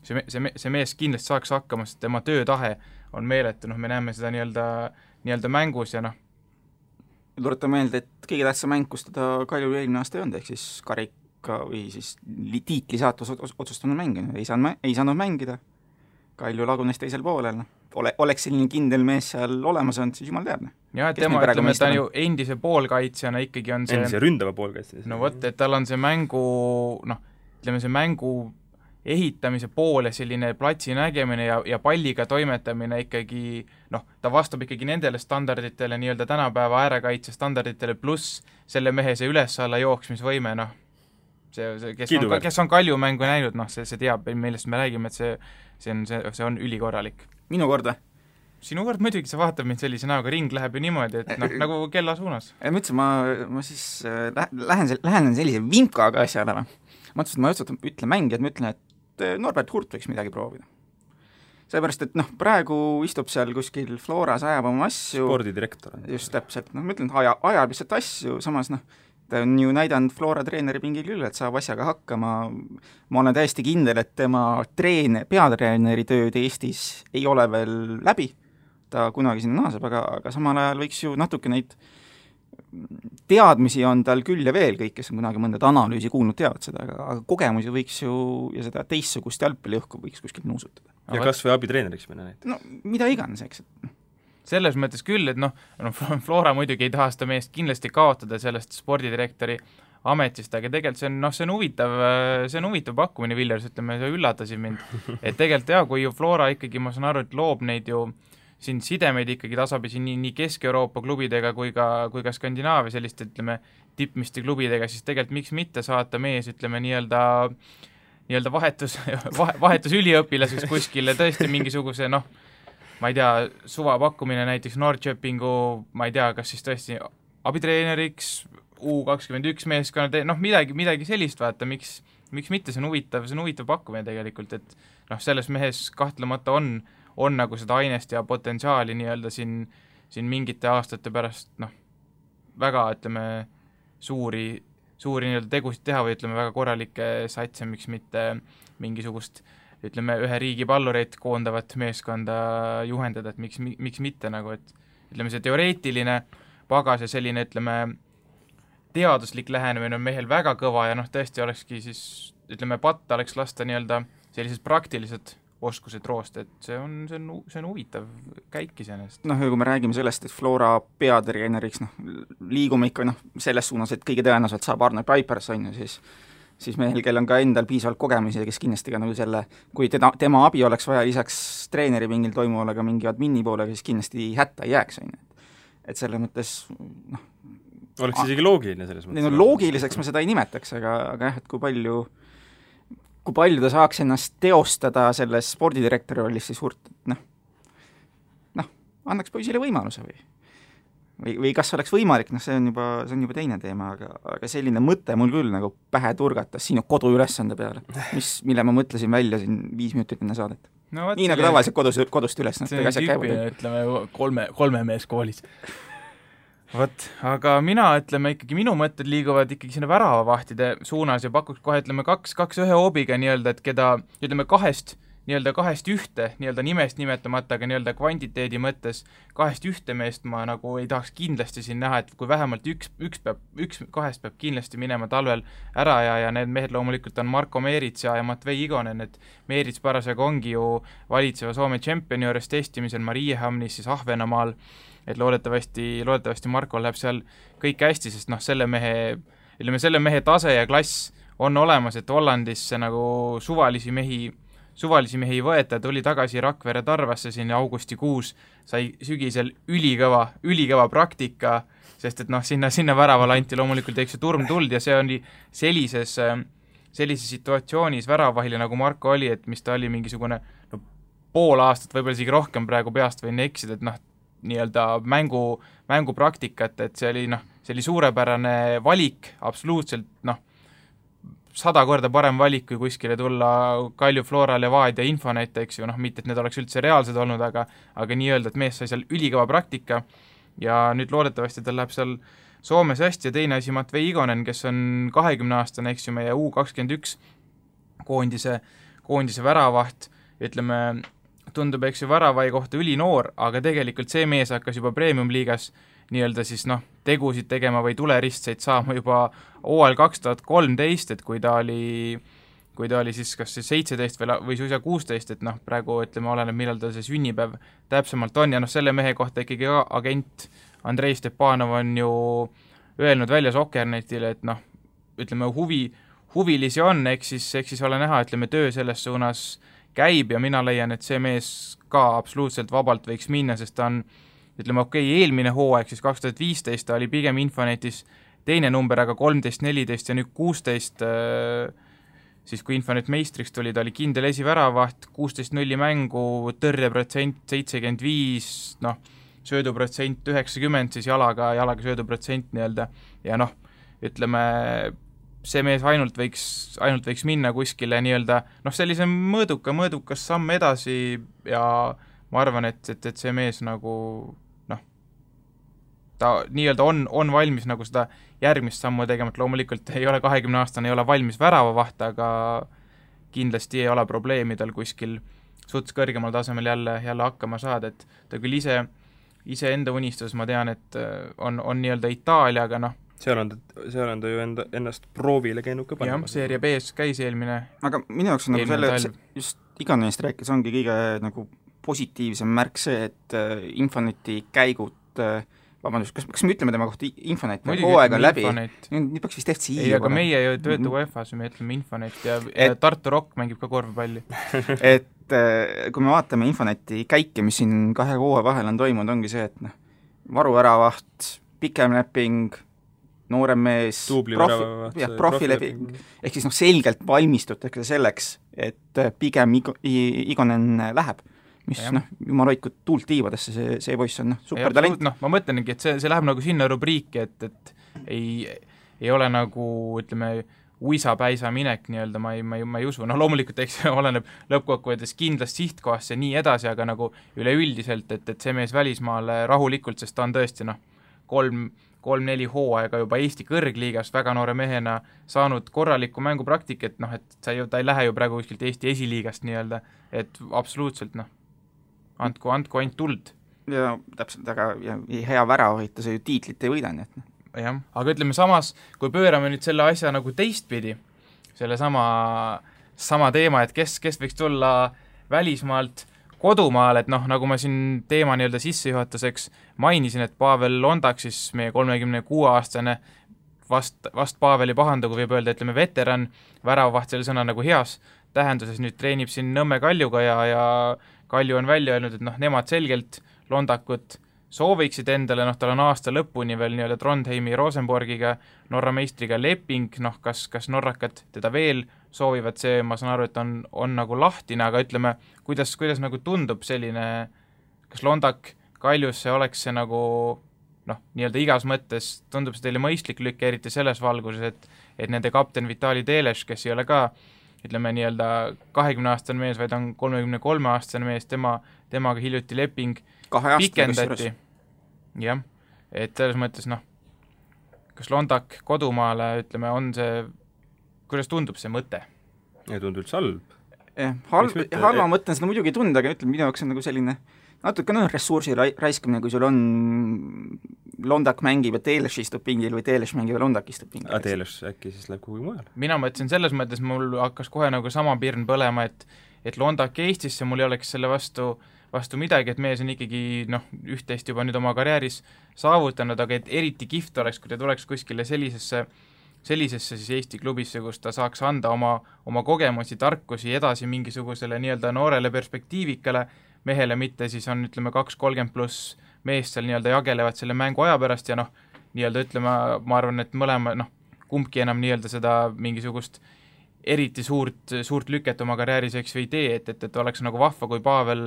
see mees kindlasti saaks hakkama, sest tema töötahe on meeletu, me näeme seda nii-öelda mängus ja Tuletan meelde, et kõige tähtsam mäng, kus teda Kalju eelmine aasta ei olnud, ehk siis karika või siis tiitli saatus otsustanud mängida, ei saanud mängida, Kalju lagunes teisel poolel, oleks selline kindel mees seal olemas olnud, siis jumal teab. Ja, et tema, ütleme, ta ju endise poolkaitsjana ikkagi on see endise ründava poolkaitsjana. No vot, et tal on see mängu, ütleme see mängu ehitamise pool ja selline platsi nägemine ja palliga toimetamine ikkagi, ta vastab ikkagi nendele standarditele, nii-öelda tänapäeva äärekaitse standarditele, pluss selle mehe see üles-alla jooksmisvõime, kes on Kalju mängu näinud, see teab, millest me räägime, et see on ülikorralik. Minu kord või? Sinu kord muidugi, sa vaatad mind sellise näoga, ring läheb ju niimoodi, et nagu kella suunas. Ma ütlesin, ma siis lähen sellise vimkaga asjale või. Ma ütlesin, et ma ütlen mängijad, ma ütlen, et Norbert Hurt võiks midagi proovida. Seepärast, et praegu istub seal kuskil Floras, ajab oma asju. Spordidirektor. Just täpselt, ma ütlen, et ajab lihtsalt asju, samas ta on ju näidanud Flora treeneri pingil küll, et saab asjaga hakkama. Ma olen täiesti kindel, et tema peatreeneri tööd Eestis ei ole veel läbi. Ta kunagi sinna naaseb, aga samal ajal võiks ju natuke neid teadmisi on tal küll ja veel, kõik, kes on kunagi mõnda analüüsi kuulnud, teavad seda, aga kogemusi võiks ju ja seda teistsugust jalgpalliõhku võiks kuskil nuusutada. Ja kas või abitreeneriks minna näiteks? Mida iganes, eks. Selles mõttes küll, et Flora muidugi ei taha seda meest kindlasti kaotada sellest spordidirektori ametist, aga tegelikult see on huvitav pakkumine, Villers, ütleme, see üllatasid mind. Et tegelikult kui ju Flora ikkagi, ma saan aru, et loob neid ju siin sidemeid ikkagi tasapisi nii Kesk-Euroopa klubidega kui ka Skandinaavia selliste, ütleme, tippmiste klubidega, siis tegelikult miks mitte saata mees, ütleme, nii-öelda vahetus üliõpilaseks kuskile tõesti mingisuguse, ma ei tea, suva pakkumine näiteks Norrköpingu, ma ei tea, kas siis tõesti abitreeneriks, U21 meeskonna, midagi sellist, vaata, miks miks mitte, see on huvitav pakkumine tegelikult, et noh, selles mehes kahtlemata on nagu seda ainest ja potentsiaali nii-öelda siin mingite aastate pärast väga, ütleme, suuri nii-öelda tegusid teha või ütleme, väga korralikke satse, miks mitte mingisugust, ütleme, ühe riigi pallureid koondavat meeskonda juhendada, et miks mitte nagu, et ütleme, see teoreetiline pagas ja selline, ütleme, teaduslik lähenemine on mehel väga kõva ja tõesti olekski siis, ütleme, patta oleks lasta nii-öelda sellised praktilised oskused roost, et see on huvitav käik iseenesest. Ja kui me räägime sellest, et Flora peatreeneriks, liigume ikka selles suunas, et kõige tõenäoliselt saab Arne Paipers, siis mehel, kel on ka endal piisavalt kogemusi ja kes kindlasti ka selle, kui tema abi oleks vaja lisaks treeneri mingil toimuvale ka mingi admini poolega, siis kindlasti hätta ei jääks, et selles mõttes oleks isegi loogiline selles mõttes. Loogiliseks ma seda ei nimetaks, aga jah, et kui palju ta saaks ennast teostada selles spordidirektori rollis, siis annaks poisile võimaluse või kas oleks võimalik, see on juba teine teema, aga selline mõte mul küll nagu pähe turgatas sinu koduülesande peale, mille ma mõtlesin välja siin 5 minutit enne saadet. Nii nagu tavaliselt kodust üles. See on tüüpiline, ütleme, kolme mees koolis. Vot, aga ikkagi minu mõtted liiguvad ikkagi sinna väravavahtide suunas ja pakuks kohe, ütleme, kaks ühe hoobiga nii-öelda, et keda, ütleme, kahest ühte, nii-öelda nimest nimetamata, aga nii-öelda kvantiteedi mõttes kahest ühte meest ma nagu ei tahaks kindlasti siin näha, et kui vähemalt üks kahest peab kindlasti minema talvel ära ja need mehed loomulikult on Marko Meerits ja Matvei Igonen, et Meerits parasjagu ongi ju valitseva Soome tšempioni juures testimisel Mariehamnis siis Ahvenamaal, et loodetavasti Markol läheb seal kõik hästi, sest selle mehe tase ja klass on olemas, et Hollandisse nagu suvalisi mehi ei võeta, tuli tagasi Rakvere Tarvasse siin augustikuus, sai sügisel ülikõva praktika, sest et sinna väravale anti loomulikult turmtuld ja see oli sellises situatsioonis väravahile, nagu Marko oli, et mis ta oli mingisugune pool aastat, võib-olla isegi rohkem praegu peast võin eksida, et nii-öelda mängupraktikat, et see oli suurepärane valik, absoluutselt 100 korda parem valik, kui kuskile tulla Kalju Flora, Levadia, Infonet, eks ju, mitte et need oleks üldse reaalsed olnud, aga nii-öelda, et mees sai seal ülikõva praktika ja nüüd loodetavasti tal läheb seal Soomes hästi ja teine asi Matvei Igonen, kes on 20-aastane, eks ju, meie U21 koondise väravaht, ütleme, tundub, eks ju, väravai kohta ülinoor, aga tegelikult see mees hakkas juba premium-liigas nii-öelda siis tegusid tegema või tuleristseid saama juba hooajal 2013, et kui ta oli siis kas 17 või suisa 16, et praegu ütleme, oleneb, millal ta see sünnipäev täpsemalt on ja selle mehe kohta ikkagi agent Andrei Stepanov on ju öelnud välja Sokkernetile, et ütleme, huvilisi on, eks siis ole näha, ütleme, töö selles suunas käib ja mina leian, et see mees ka absoluutselt vabalt võiks minna, sest ta on, ütleme, eelmine hooaeg, siis 2015 ta oli pigem Infonetis teine number, aga 13, 14 ja nüüd 16, siis kui Infonet meistriks tuli, ta oli kindel esiväravaht, 16-0 mängu, tõrjeprotsent 75, sööduprotsent 90, siis jalaga sööduprotsent nii-öelda ja ütleme, see mees ainult võiks minna kuskile nii-öelda, sellise mõõdukas samm edasi ja ma arvan, et see mees nagu ta nii-öelda on valmis nagu seda järgmist sammu tegema, et loomulikult ei ole 20-aastane, ei ole valmis väravavaht, aga kindlasti ei ole probleemi tal kuskil suts kõrgemal tasemel jälle hakkama saada, et ta küll ise enda unistus, ma tean, et on nii-öelda Itaalia, aga seal on ta ju ennast proovile käinud ka panema. Jah, seeria B-s käis eelmine. Aga minu jaoks on just Igonenist rääkides ongi kõige nagu positiivsem märk see, et Infoneti käigud, vabandust, kas me ütleme tema kohta Infonet, hooaeg on läbi, nüüd peaks vist FC ei, aga meie ju töötu UEFA-s, me ütleme Infonet ja Tartu Rock mängib ka korvpalli. Et kui me vaatame Infoneti käike, mis siin 2 hooaja vahel on toimunud, ongi see, et varuväravaht, pikem leping, noorem mees, profileping, ehk siis selgelt valmistutakse selleks, et pigem Igonen läheb, mis jumal hoidku tuult tiivadesse, see poiss on supertalent. Ma mõtlengi, et see läheb nagu sinna rubriiki, et ei ole nagu, ütleme, uisapäisa minek nii-öelda, ma ei usu, noh loomulikult eks oleneb lõppkokkuvõttes kindlast sihtkohast ja nii edasi, aga nagu üleüldiselt, et see mees välismaale rahulikult, sest ta on tõesti 3-4 hooaega juba Eesti kõrgliigas väga noore mehena saanud korralikku mängupraktikat, et ta ei lähe ju praegu kuskilt Eesti esiliigast nii-öelda, et absoluutselt andku ainult tuld. Ja täpselt, aga hea väravahita, see ju tiitlit ei võida, nii et jah, aga ütleme samas, kui pöörame nüüd selle asja nagu teistpidi, selle sama teema, et kes võiks tulla välismaalt kodumaal, et nagu ma siin teema nii-öelda sissejuhatuseks mainisin, et Pavel Londak, siis meie 36-aastane, vast Paveli pahandagu võib öelda, ütleme veteran, väravavaht selle sõna nagu heas tähenduses nüüd treenib siin Nõmme Kaljuga ja Kalju on välja öelnud, et nemad selgelt Londakut sooviksid endale, tal on aasta lõpuni veel nii-öelda Trondheimi Rosenborgiga, Norra meistriga leping, kas norrakad teda veel soovivad, see ma saan aru, et on nagu lahtine, aga ütleme, kuidas nagu tundub selline, kas Londak Kaljusse oleks see nagu nii-öelda igas mõttes, tundub see teile mõistlik lükk, eriti selles valguses, et nende kapten Vitali Teleš, kes ei ole ka ütleme nii-öelda 20-aastane mees, vaid on 33-aastane mees, temaga hiljuti leping pikendati. Jah, et selles mõttes kas Londak kodumaale, ütleme, on see, kuidas tundub see mõte? Ei tundu üldse halb. Halva mõtlen seda muidugi tunda, aga ütleme, minu jaoks on nagu selline natuke ressursi raiskamine, kui sul on Londak mängib ja Teleš istub pingil või Teleš mängib ja Londak istub pingil. Aga Teleš äkki siis läheb kuhugi mujal? Mina mõtlesin selles mõttes, mul hakkas kohe nagu sama pirn põlema, et Londak Eestisse mul ei oleks selle vastu midagi, et mees on ikkagi üht-teist juba nüüd oma karjääris saavutanud, aga et eriti kihvt oleks, kui ta tuleks kuskile sellisesse siis Eesti klubisse, kus ta saaks anda oma kogemusi, tarkusi edasi mingisugusele nii-öelda noorele perspektiivikale mehele, mitte siis on, ütleme, 2-30 pluss meest seal nii-öelda jagelevad selle mängu aja pärast ja nii-öelda ütleme, ma arvan, et mõlema, kumbki enam nii-öelda seda mingisugust eriti suurt lüket oma karjääris eks või tee, et oleks nagu vahva, kui Pavel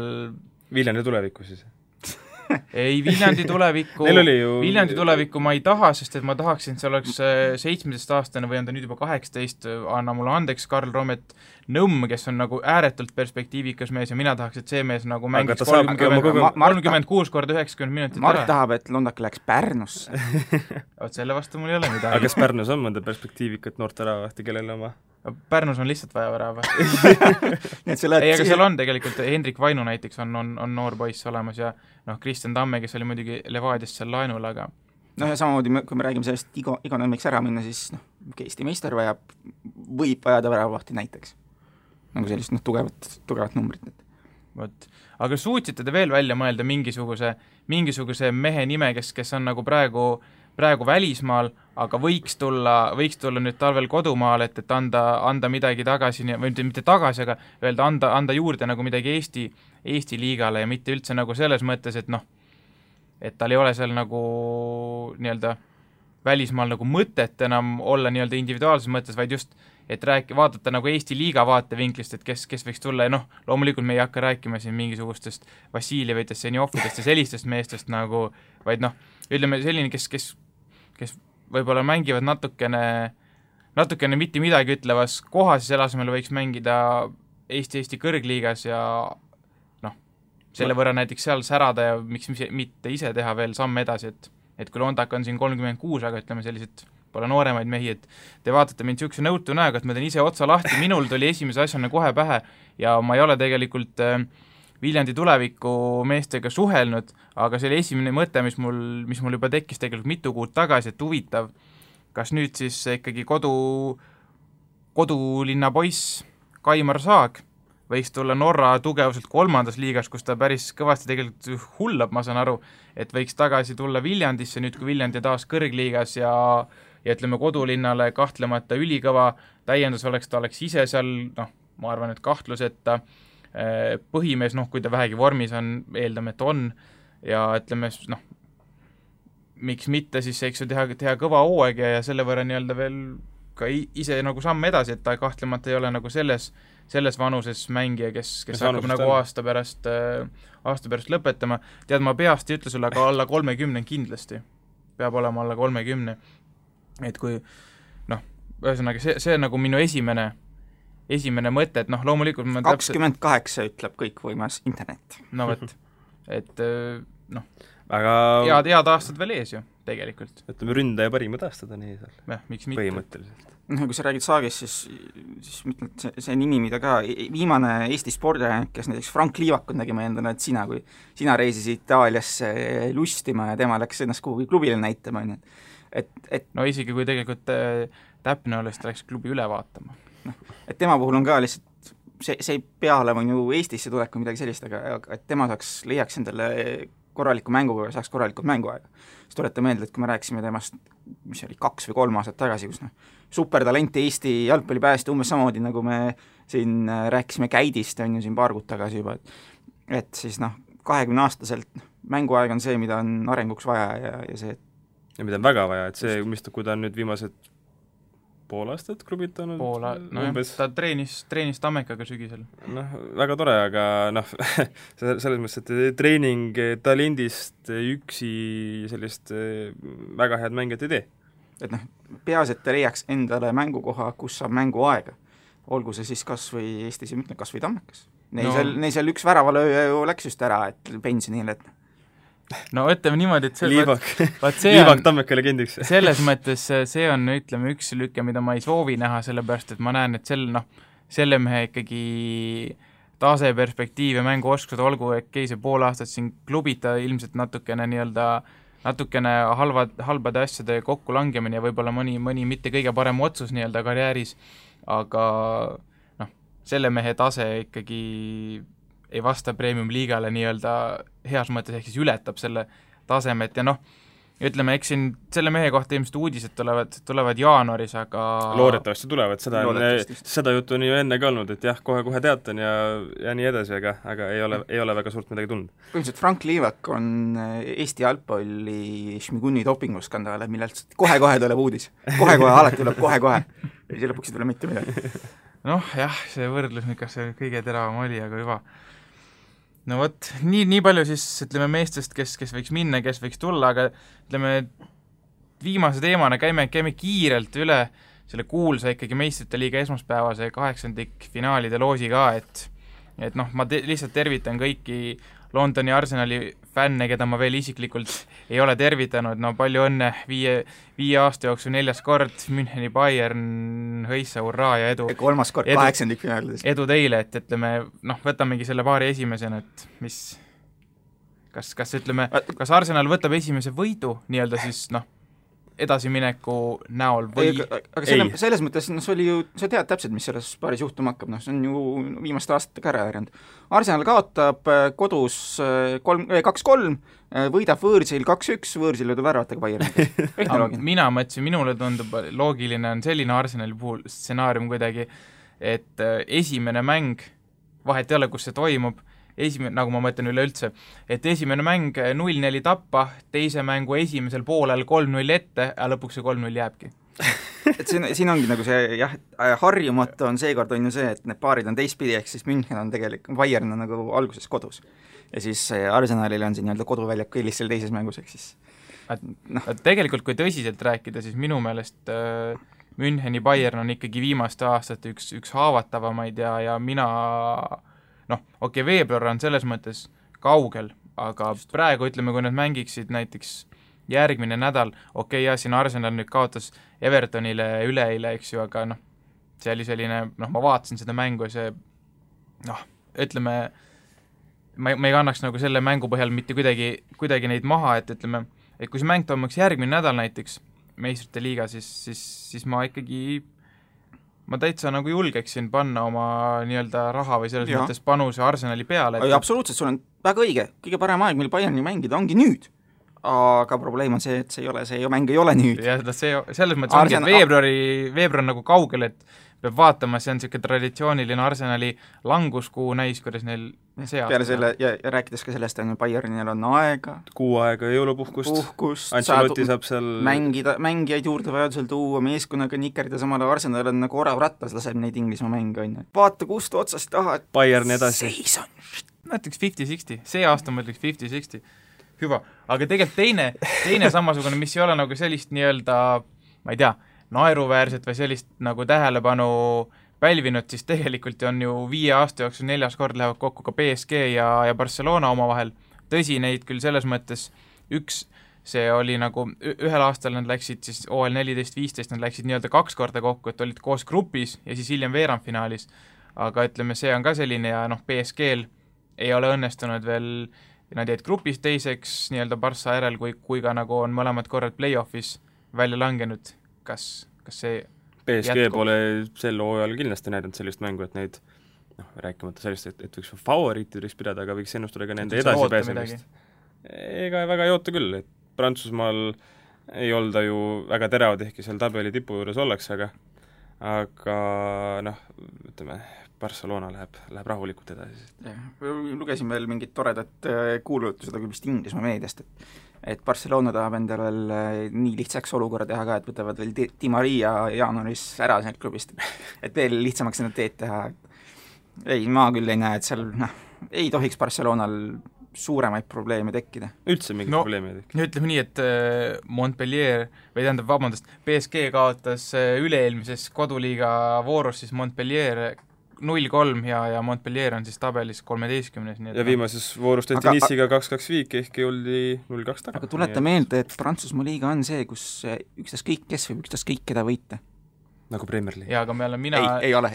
Viljandi tulevikku siis? Ei, Viljandi tulevikku ma ei taha, sest et ma tahaksin, et see oleks 17-aastane või on ta nüüd juba 18, anna mulle andeks, Karl Romet Nõmm, kes on nagu ääretult perspektiivikas mees ja mina tahaks, et see mees nagu mängiks 36 korda 90 minutit Mart tahab, et Londak läheks Pärnusse. Selle vastu mul ei ole midagi. Aga kas Pärnus on mõnda perspektiivikat noort väravahti, kellele oma? Pärnus on lihtsalt vaja väravahti. Ei, aga seal on tegelikult, Hendrik Vainu näiteks on noor poiss olemas ja Kristjan Tamme, kes oli muidugi Levadiast seal laenul, aga ja samamoodi, kui me räägime sellest iga nämmeks ära minna, siis Eesti meister võib vajada väravahti näiteks. Nagu sellist tugevat numbrit. Võt. Aga suutsite te veel välja mõelda mingisuguse mehe nime, kes on nagu praegu välismaal, aga võiks tulla nüüd talvel kodumaal, et anda midagi tagasi, või mitte tagasi, aga öelda anda juurde nagu midagi Eesti liigale ja mitte üldse nagu selles mõttes, et tal ei ole seal nagu nii-öelda välismaal nagu mõtet enam olla nii-öelda individuaalses mõttes, vaid just, et vaadata nagu Eesti liiga vaatevinklist, et kes võiks tulla ja loomulikult me ei hakka rääkima siin mingisugustest Vassiljevitest, Senjofidest ja sellistest meestest nagu, vaid ütleme selline, kes võib-olla mängivad natukene mitte midagi ütlevas kohas ja selle asemel võiks mängida Eesti kõrgliigas ja selle võrra näiteks seal särada ja miks mitte ise teha veel samm edasi, et kui Londak on siin 36, aga ütleme sellised pole nooremaid mehi, et te vaatate mind niisuguse nõutu näoga, et ma teen ise otsa lahti, minul tuli esimese asjana kohe pähe ja ma ei ole tegelikult Viljandi tuleviku meestega suhelnud, aga see oli esimene mõte, mis mul juba tekkis tegelikult mitu kuud tagasi, et huvitav, kas nüüd siis ikkagi kodulinna poiss Kaimar Saag võiks tulla Norra tugevuselt 3. liigas, kus ta päris kõvasti tegelikult hullab, ma saan aru, et võiks tagasi tulla Viljandisse nüüd, kui Viljandi taas kõrgliigas ja ütleme kodulinnale kahtlemata ülikõva täiendus oleks, ta oleks ise seal, ma arvan, et kahtluseta põhimees, kui ta vähegi vormis on, eeldame, et on, ja ütleme, miks mitte siis, eks ju, teha kõva hooaeg ja selle võrra nii-öelda veel ka ise nagu samm edasi, et ta kahtlemata ei ole nagu selles vanuses mängija, kes hakkab nagu aasta pärast lõpetama. Tead, ma peast ei ütle sulle, aga alla 30 kindlasti. Peab olema alla 30. Et kui, ühesõnaga, see on nagu minu esimene mõte, et noh, loomulikult 28 ütleb kõikvõimas internet. No võt, et noh, aga head aastad veel ees ju, tegelikult. ütleme, ründaja parimad aastad on ees seal. Jah, miks mitte. Põhimõtteliselt. Kui sa räägid Saagist, siis mõtled, see nimi, mida ka viimane Eesti spordiajanik, kes näiteks Frank Liivakut nägime endale, et kui sina reisisid Itaaliasse lustima ja tema läks ennast kuhugi klubile näitama, et no isegi kui tegelikult täpne oleks, ta läks klubi üle vaatama. Et tema puhul on ka lihtsalt, see ei pea olema ju Eestisse tulek või midagi sellist, aga et tema leiaks endale korraliku mänguga ja saaks korralikult mänguaega. Siis tulete meelde, et kui me rääkisime temast, mis oli 2 või 3 aastat tagasi, kus supertalent Eesti jalgpallipääste umbes samamoodi, nagu me siin rääkisime Käidist, on ju siin paar kuud tagasi juba, et siis 20-aastaselt mänguaeg on see, mida on arenguks vaja ja see ja mida on väga vaja, et see, kui ta on nüüd viimased pool aastat klubitanud ta treenis Tammekaga sügisel. Väga tore, aga selles mõttes, et treening talendist üksi sellist väga head mängijat ei tee. Et peaasi, et ta leiaks endale mängukoha, kus saab mänguaega. Olgu see siis kas või Eestis, kas või Tammekas. Neil seal üks väravalööja ju läks just ära, et pensionile, et no ütleme niimoodi, et Liivak Tammeka legendiks. Selles mõttes see on, ütleme, üks lüke, mida ma ei soovi näha, sellepärast, et ma näen, et selle mehe ikkagi tase perspektiiv ja mänguoskused, olgu see pool aastat siin klubita ilmselt natukene halbade asjade kokkulangemine ja võib-olla mõni mitte kõige parem otsus karjääris, aga selle mehe tase ikkagi ei vasta premium-liigale heas mõttes, ehk siis ületab selle tasemet ja ütleme, eks siin selle mehe kohta ilmselt uudised tulevad jaanuaris, aga loodetavasti tulevad, seda juttu on ju enne ka olnud, et jah, kohe teatan ja nii edasi, aga ei ole väga suurt midagi tulnud. Põhimõtteliselt Frank Liivak on Eesti jalgpalli Šmiguni dopinguskandaale, millelt kohe tuleb uudis. Kohe alati tuleb kohe. Ja siis lõpuks ei tule mitte midagi. Jah, see võrdlus, kas see kõige teravam oli, aga juba. No vot, nii palju siis, ütleme, meestest, kes võiks minna, kes võiks tulla, aga ütleme, viimase teemana käime kiirelt üle selle kuulsa ikkagi meistrite liiga esmaspäevase 8. finaalide loosi ka, et ma lihtsalt tervitan kõiki Londoni Arsenali fänne, keda ma veel isiklikult ei ole tervitanud, palju õnne 5 aasta jooksul 4. kord, Müncheni Bayern, hõissa, hurraa ja edu. 3. kord 8. finaalides. Edu teile, et ütleme, võtamegi selle paari esimesena, et mis, kas ütleme, kas Arsenal võtab esimese võidu siis edasimineku näol või aga selles mõttes, see oli ju, sa tead täpselt, mis selles paaris juhtuma hakkab, see on ju viimaste aastatega ära järjanud. Arsenal kaotab kodus 2-3, võidab võõrsil 2-1, võõrsil löödub väravatega Bayern. Mina mõtlesin, minule tundub loogiline on selline Arsenali puhul stsenaarium kuidagi, et esimene mäng, vahet ei ole, kus see toimub, nagu ma mõtlen üleüldse, et esimene mäng 0-4 tappa, teise mängu esimesel poolel 3-0 ette, ja lõpuks see 3-0 jääbki. Et siin ongi nagu see, harjumatu on seekord on ju see, et need paarid on teistpidi, ehk siis München on tegelikult, Bayern on nagu alguses kodus. Ja siis Arsenalil on siin koduväljaku eelis selle teises mängus, ehk siis tegelikult, kui tõsiselt rääkida, siis minu meelest Müncheni Bayern on ikkagi viimaste aastate üks haavatavamaid ja mina veebruar on selles mõttes kaugel, aga praegu ütleme, kui nad mängiksid näiteks järgmine nädal, siin Arsenal nüüd kaotas Evertonile üleeile, eks ju, aga see oli selline, ma vaatasin seda mängu ja see, ütleme, ma ei kannaks nagu selle mängu põhjal mitte kuidagi neid maha, et ütleme, et kui see mäng toimuks järgmine nädal näiteks meistrite liiga, siis ma täitsa nagu julgeksin panna oma raha või selles mõttes panuse Arsenali peale. Absoluutselt, sul on väga õige, kõige parem aeg, mil Bayerni mängida ongi nüüd. Aga probleem on see, et see mäng ei ole nüüd. Ja selles mõttes ongi, et veebruar on nagu kaugel, et peab vaatama, see on niisugune traditsiooniline Arsenali languskuu näis, kuidas neil see aasta. Peale selle, ja rääkides ka sellest, Bayernil on aega. Kuu aega jõulupuhkust. Ancelotti saab seal mängijaid juurde vajadusel tuua, meeskonnaga nikerdida, samale Arsenal on nagu orav rattas, laseb neid Inglismaa mänge, on ju. Vaata, kust otsast taha, et Bayern edasi. Ma ütleks 50-60, see aasta ma ütleks 50-60. Hüva, aga tegelikult teine samasugune, mis ei ole nagu sellist ma ei tea, naeruväärset või sellist nagu tähelepanu pälvinud, siis tegelikult on ju 5 aasta jooksul 4. kord lähevad kokku ka PSG ja Barcelona omavahel. Tõsi, neid küll selles mõttes see oli nagu, ühel aastal nad läksid siis OL 14-15, nad läksid nii-öelda 2 korda kokku, et olid koos grupis ja siis hiljem veerandfinaalis. Aga ütleme, see on ka selline ja PSG-l ei ole õnnestunud veel, nad jäid grupis teiseks nii-öelda Barca järel, kui ka nagu on mõlemad korrad play-offis välja langenud. Kas see PSG pole sel hooajal kindlasti näidanud sellist mängu, et neid rääkimata sellist, et võiks favoriitideks pidada, aga võiks ennustada ka nende edasipääsemist. Ega väga ei oota küll, et Prantsusmaal ei olda ju väga teravad, ehkki seal tabeli tipu juures ollakse, aga ütleme, Barcelona läheb rahulikult edasi. Lugesin veel mingit toredat kuulutused, aga vist Inglismaa meediast, et Barcelona tahab endale nii lihtsaks olukorra teha ka, et võtavad veel Di Maria jaanuaris ära sealt klubist, et veel lihtsamaks seda teed teha. Ei, ma küll ei näe, et seal ei tohiks Barcelonal suuremaid probleeme tekkida. Üldse mingit probleemi ei tekki. Ütleme nii, et Montpellier, või tähendab, vabandust, PSG kaotas üle-eelmises koduliiga voorus siis Montpellier 0-3 ja Montpellier on siis tabelis 13. Ja viimases voorus tehti Nice'iga 2-2 viik, ehkki oldi 0-2 taga. Aga tuleta meelde, et Prantsusmaa liiga on see, kus ükstaskõik kes võib ükstaskõik keda võita. Nagu Premier League. Jaa, aga ei ole,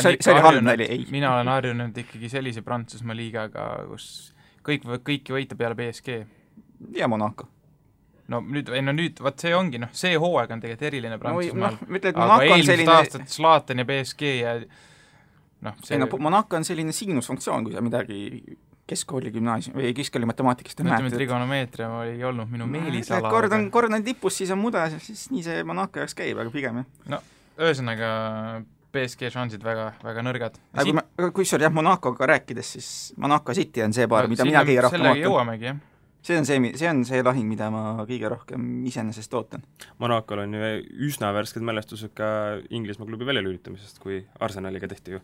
see oli halb näli, ei. Mina olen harjunud ikkagi sellise Prantsusmaa liigaga, kus kõiki võita peale PSG. Ja Monaco. No nüüd, vaat see ongi, see hooaeg on tegelikult eriline Prantsusmaal. Aga eelmist aastat Zlatan ja PSG ja Monaco on selline siinusfunktsioon, kui sa midagi keskkooli gümnaasium või keskkooli matemaatikast ütleme, et trigonomeetria ei olnud minu meelisala. Kord on tipus, siis on mudas, siis nii see Monaco jaoks käib, aga pigem jah. Ühesõnaga PSG šansid väga, väga nõrgad. Kui sul Monacoga rääkides, siis Monaco City on see paar, mida mina kõige rohkem sellega jõuamegi, jah. See on see lahing, mida ma kõige rohkem iseenesest ootan. Monacol on ju üsna värsked mälestused ka Inglismaa klubi väljalülitamisest, kui Arsenaliga tehti ju.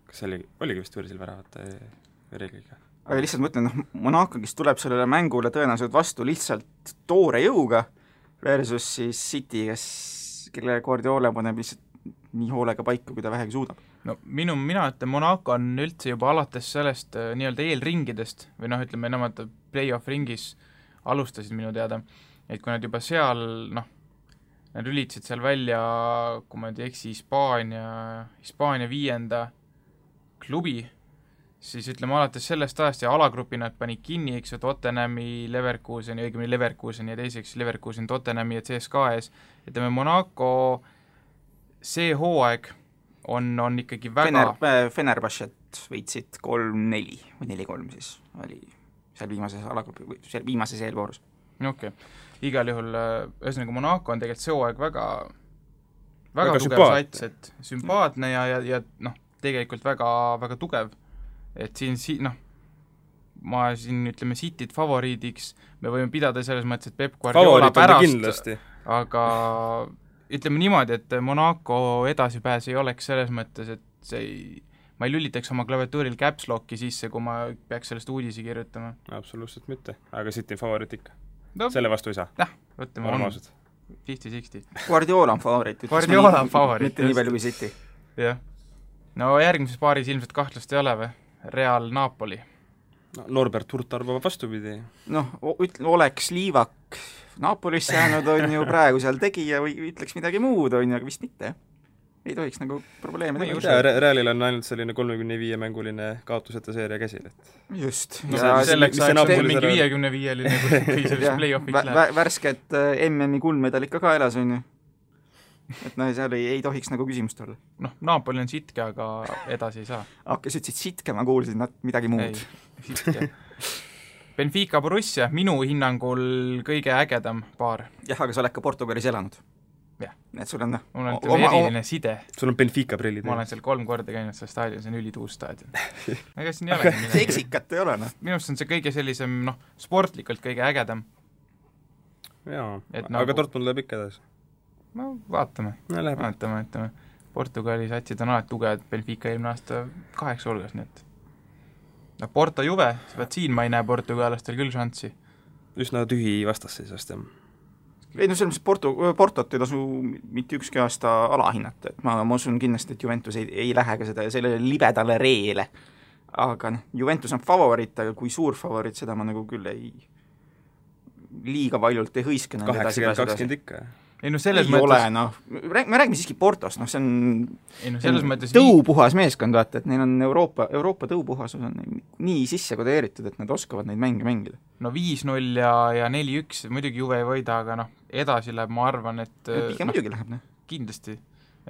Kas oligi vist võrsil väravate reegliga? Aga lihtsalt mõtlen, Monaco, kes tuleb sellele mängule tõenäoliselt vastu lihtsalt toore jõuga versus siis City, kelle Guardiola paneb lihtsalt nii hoolega paika, kui ta vähegi suudab. No mina ütlen, Monaco on üldse juba alates sellest nii-öelda eelringidest või ütleme, nemad play-off ringis alustasid minu teada, et kui nad juba seal, nad ülitasid seal välja, kui ma ei eksi, Hispaania 5. klubi, siis ütleme alates sellest ajast ja alagrupi nad panid kinni, eks ju, Tottenhami, Leverkuseni, õigemini Leverkuseni ja teiseks Leverkusen, Tottenhami ja CSKA ees. Ütleme, Monaco see hooaeg on ikkagi väga... Fenerbahcet võitsid 3-4 või 4-3 siis oli seal viimases alagrupi või seal viimases eelvoorus. Okei. Igal juhul, ühesõnaga Monaco on tegelikult see hooaeg väga tugev sats, et sümpaatne ja tegelikult väga, väga tugev. Et siin ma ütleme Cityt favoriidiks, me võime pidada selles mõttes, et Pep Guardiola pärast, aga ütleme niimoodi, et Monaco edasipääs ei oleks selles mõttes, et ma ei lülitaks oma klaviatuuril caps locki sisse, kui ma peaks sellest uudisi kirjutama. Absoluutselt mitte, aga City favoriit ikka. Selle vastu ei saa. Ütleme, on 50-60. Guardiola on favoriit. Guardiola on favoriit. Mitte nii palju kui City. Jah. No järgmises paaris ilmselt kahtlust ei ole või? Real Napoli. Norbert Hurt arvab vastupidi. Oleks Liivak Napolisse jäänud, on ju praegu seal tegija või ütleks midagi muud, on ju, aga vist mitte. Ei tohiks nagu probleeme teha. Realil on ainult selline 35 mänguline kaotuseta seeria käsil, et... Just. Selleks ajaks on mingi 55-line, kui selles play-offis läheb. Värsket MM-i kuldmedal ikka ka elas, on ju. Et seal ei tohiks nagu küsimust olla. Napoli on sitke, aga edasi ei saa. Kes ütlesid sitke, ma kuulsin midagi muud. Ei, sitke. Benfica Borussia, minu hinnangul kõige ägedam paar. Jah, aga sa oled ka Portugalis elanud. Jah. Et sul on eriline side. Sul on Benfica prillid. Ma olen seal 3 korda käinud seal staadion, see on ülituus staadion. Ega siin ei ole midagi. See eksikat ei ole, Minust on see kõige sellisem, sportlikult kõige ägedam. Jaa, aga Dortmund läheb ikka edasi. Vaatame. Vaatame. Portugali satsid on alati tugevad, Benfica eelmine aasta 8 hulgas, nii et Porto Juve, siin ma ei näe portugalastel küll šanssi. Üsna tühi vastasseisast, jah. ei no selles mõttes Portot ei tasu mitte ükski aasta alahinnata, et ma usun kindlasti, et Juventus ei lähe ka sellele libedale reele. Aga noh, Juventus on favoriit, aga kui suur favoriit, seda ma nagu küll liiga paljult ei hõiske. 80-20 ikka. Ei no selles ei mõttes... ole, noh, me räägime siiski Portost, noh see on, ei, no selles mõttes tõupuhas meeskond, vaata, et neil on Euroopa tõupuhasus on nii sisse kodeeritud, et nad oskavad neid mänge mängida. No 5-0 ja 4-1, muidugi Juve ei võida, aga noh, edasi läheb, ma arvan, et pigem muidugi läheb, noh. Kindlasti,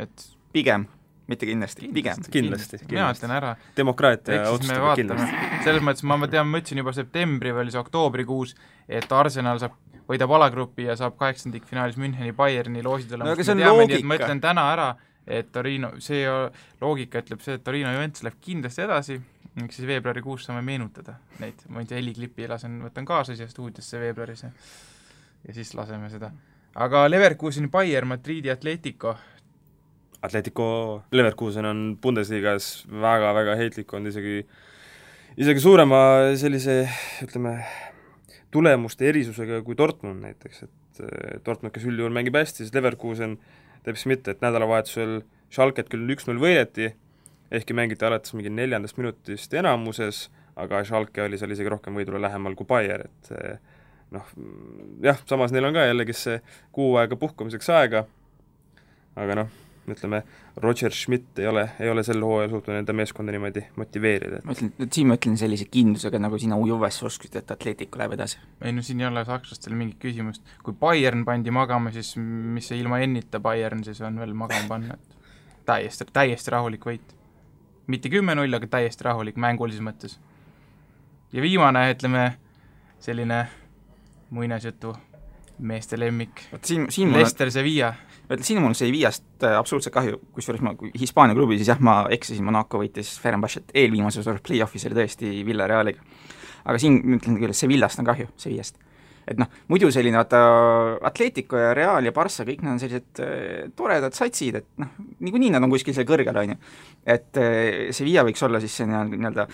et pigem, mitte kindlasti, pigem. Kindlasti. Mina ütlen ära. Demokraatia otsustab kindlasti. Selles mõttes ma ütlesin juba septembri või see oktoobrikuus, et Arsenal võidab alagrupi ja saab 8-finaalis Müncheni Bayerni loosi tulemust. No aga see on loogika. Ma ütlen täna ära, et Torino, see loogika ütleb see, et Torino Juventus läheb kindlasti edasi, miks siis veebruarikuus saame meenutada neid. Ma ei tea, heliklippi võtan kaasa siia stuudiosse veebruaris ja siis laseme seda. Aga Leverkuseni Bayern, Madridi Atletico Leverkusen on Bundesligas väga-väga heitlik olnud, isegi suurema sellise, ütleme, tulemuste erisusega kui Dortmund näiteks, et Dortmund, kes üldjuhul mängib hästi, siis Leverkusen teeb siis mitte, et nädalavahetusel Schalket küll 1-0 võideti, ehkki mängiti alates mingi 4. minutist enamuses, aga Schalke oli seal isegi rohkem võidule lähemal kui Bayer, et noh, jah, samas neil on ka jällegi see kuu aega puhkamiseks aega, aga noh, ütleme, Roger Schmidt ei ole sel hooajal suutnud enda meeskonda niimoodi motiveerida. Ma ütlen sellise kindlusega, nagu sina Juves osksid, et Atletico läheb edasi. Ei no siin ei ole sakslastel mingit küsimust. Kui Bayern pandi magama, siis mis see ilma ennita Bayern siis on veel magama panna, et täiesti rahulik võit. Mitte 10-0, aga täiesti rahulik mängulises mõttes. Ja viimane, ütleme, selline muinasjutu meeste lemmik. Leicester Sevilla. Siin mul see Sevillast absoluutselt kahju, kusjuures ma Hispaania klubi, siis jah, ma eksisin, Monaco võitis Fenerbahcet eelviimases play-offis oli tõesti Villarealiga. Aga siin ütlen küll, et Sevillast on kahju, Sevillast. Et noh, muidu selline Atletico ja Real ja Barca, kõik nad on sellised toredad satsid, et noh, niikuinii nad on kuskil seal kõrgel, on ju. Et Sevilla võiks olla siis see nii-öelda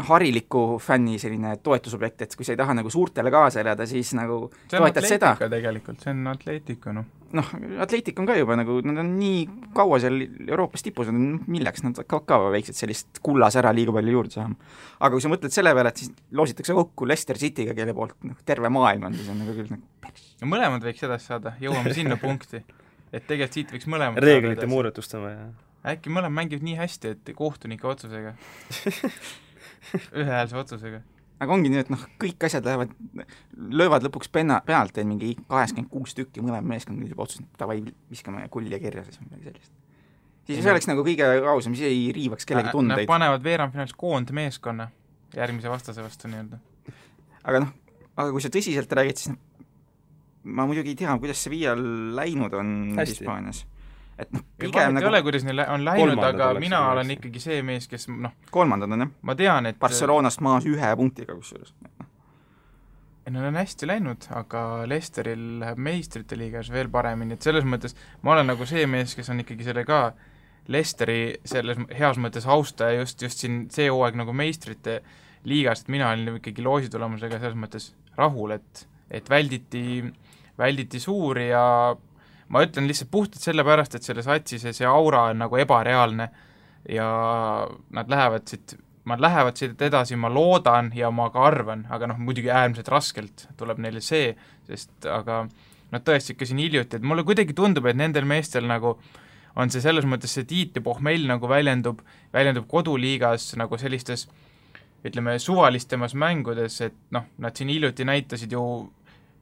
hariliku fänni selline toetusobjekt, et kui sa ei taha nagu suurtele kaasa elada, siis nagu toetad seda. Tegelikult, see on Atletico, noh. Noh, Atletico on ka juba nagu, nad on nii kaua seal Euroopas tipus, milleks nad ka väiksed sellist kullas ära liiga palju juurde saama. Aga kui sa mõtled selle peale, et siis loositakse kokku Leicester City'ga, kelle poolt terve maailm on, siis on nagu küll nagu ja mõlemad võiks edasi saada, jõuame sinna punkti, et tegelikult siit võiks mõlemad reeglite muudatustama ja äkki mõlemad mängivad nii hästi, et kohtunike otsusega ühehäälse otsusega. Aga ongi nii, et noh, kõik asjad löövad lõpuks pealt, et mingi 86 tükki mõlema meeskond juba otsustab, tavai viskame kulli kirja, siis midagi sellist. Siis see oleks nagu kõige ausam, siis ei riivaks kellegi tundeid. Nad panevad veerandfinaalis koondmeeskonna järgmise vastase vastu nii-öelda. Aga kui sa tõsiselt räägid, siis ma muidugi ei tea, kuidas see Sevilla läinud on Hispaanias. Et noh, pigem nagu... ei ole, kuidas neil on läinud, aga mina olen ikkagi see mees, kes noh... Kolmandad on, jah? Ma tean, et... Barcelonast maas 1 punktiga kusjuures. Neil on hästi läinud, aga Leicesteril läheb meistrite liigas veel paremini, et selles mõttes ma olen nagu see mees, kes on ikkagi selle ka Leicesteri selles heas mõttes austaja just siin see hooaeg nagu meistrite liigas, et mina olin ikkagi loositulemusega selles mõttes rahul, et välditi suuri ja ma ütlen lihtsalt puhtalt sellepärast, et selle satsi see aura on nagu ebareaalne ja nad lähevad siit edasi, ma loodan ja ma ka arvan, aga noh, muidugi äärmiselt raskelt tuleb neile see, sest aga nad tõesti ikka siin hiljuti, et mulle kuidagi tundub, et nendel meestel nagu on see selles mõttes see tiit ja pohmell nagu väljendub koduliigas nagu sellistes, ütleme, suvalistemas mängudes, et noh, nad siin hiljuti näitasid ju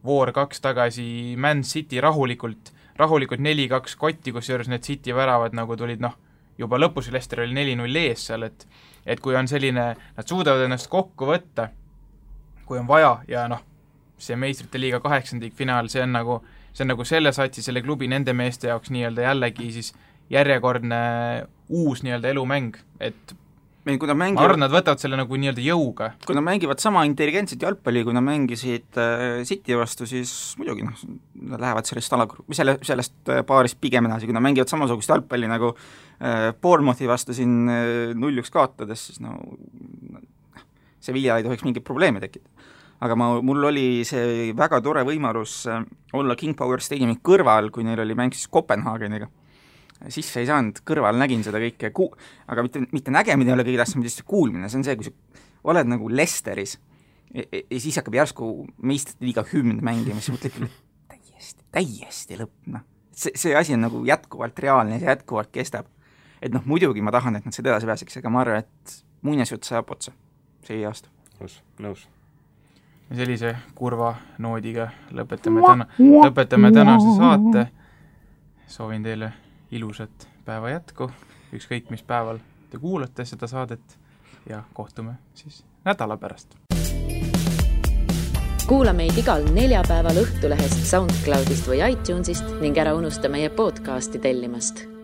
War 2 tagasi Man City rahulikult 4-2 kotti, kus juures need City väravad nagu tulid noh, juba lõpus Leicester oli 4-0 ees seal, et kui on selline, nad suudavad ennast kokku võtta, kui on vaja ja noh, see meistrite liiga 8. finaal, see on nagu selle satsi, selle klubi nende meeste jaoks nii-öelda jällegi siis järjekordne uus nii-öelda elumäng, et ma arvan, nad võtavad selle nagu nii-öelda jõuga. Kui nad mängivad sama intelligentset jalgpalli, kui nad mängisid City vastu, siis muidugi noh, nad lähevad sellest paarist pigem edasi, kui nad mängivad samasugust jalgpalli nagu Bournemouthi vastu siin 0-1 kaotades, siis no Sevilla ei tohiks mingit probleemi tekkida. aga mul oli see väga tore võimalus olla King Power Stadiumi kõrval, kui neil oli mäng siis Kopenhaageniga. Sisse ei saanud, kõrval nägin seda kõike, aga mitte nägemine ei ole kõige tähtsam, mitte kuulmine, see on see, kui sa oled nagu Lesteris ja siis hakkab järsku meistrite liiga hümn mängima, siis mõtled, täiesti lõpp, see asi on nagu jätkuvalt reaalne, see jätkuvalt kestab. Et muidugi ma tahan, et nad seda edasi pääseks, aga ma arvan, et muinasjutt saab otsa see aasta. Nõus. Ja sellise kurva noodiga lõpetame tänase saate. Soovin teile ilusat päeva jätku, ükskõik mis päeval te kuulate seda saadet ja kohtume siis nädala pärast. Kuula meid igal neljapäeval Õhtulehest, SoundCloudist või iTunesist ning ära unusta meie podcasti tellimast.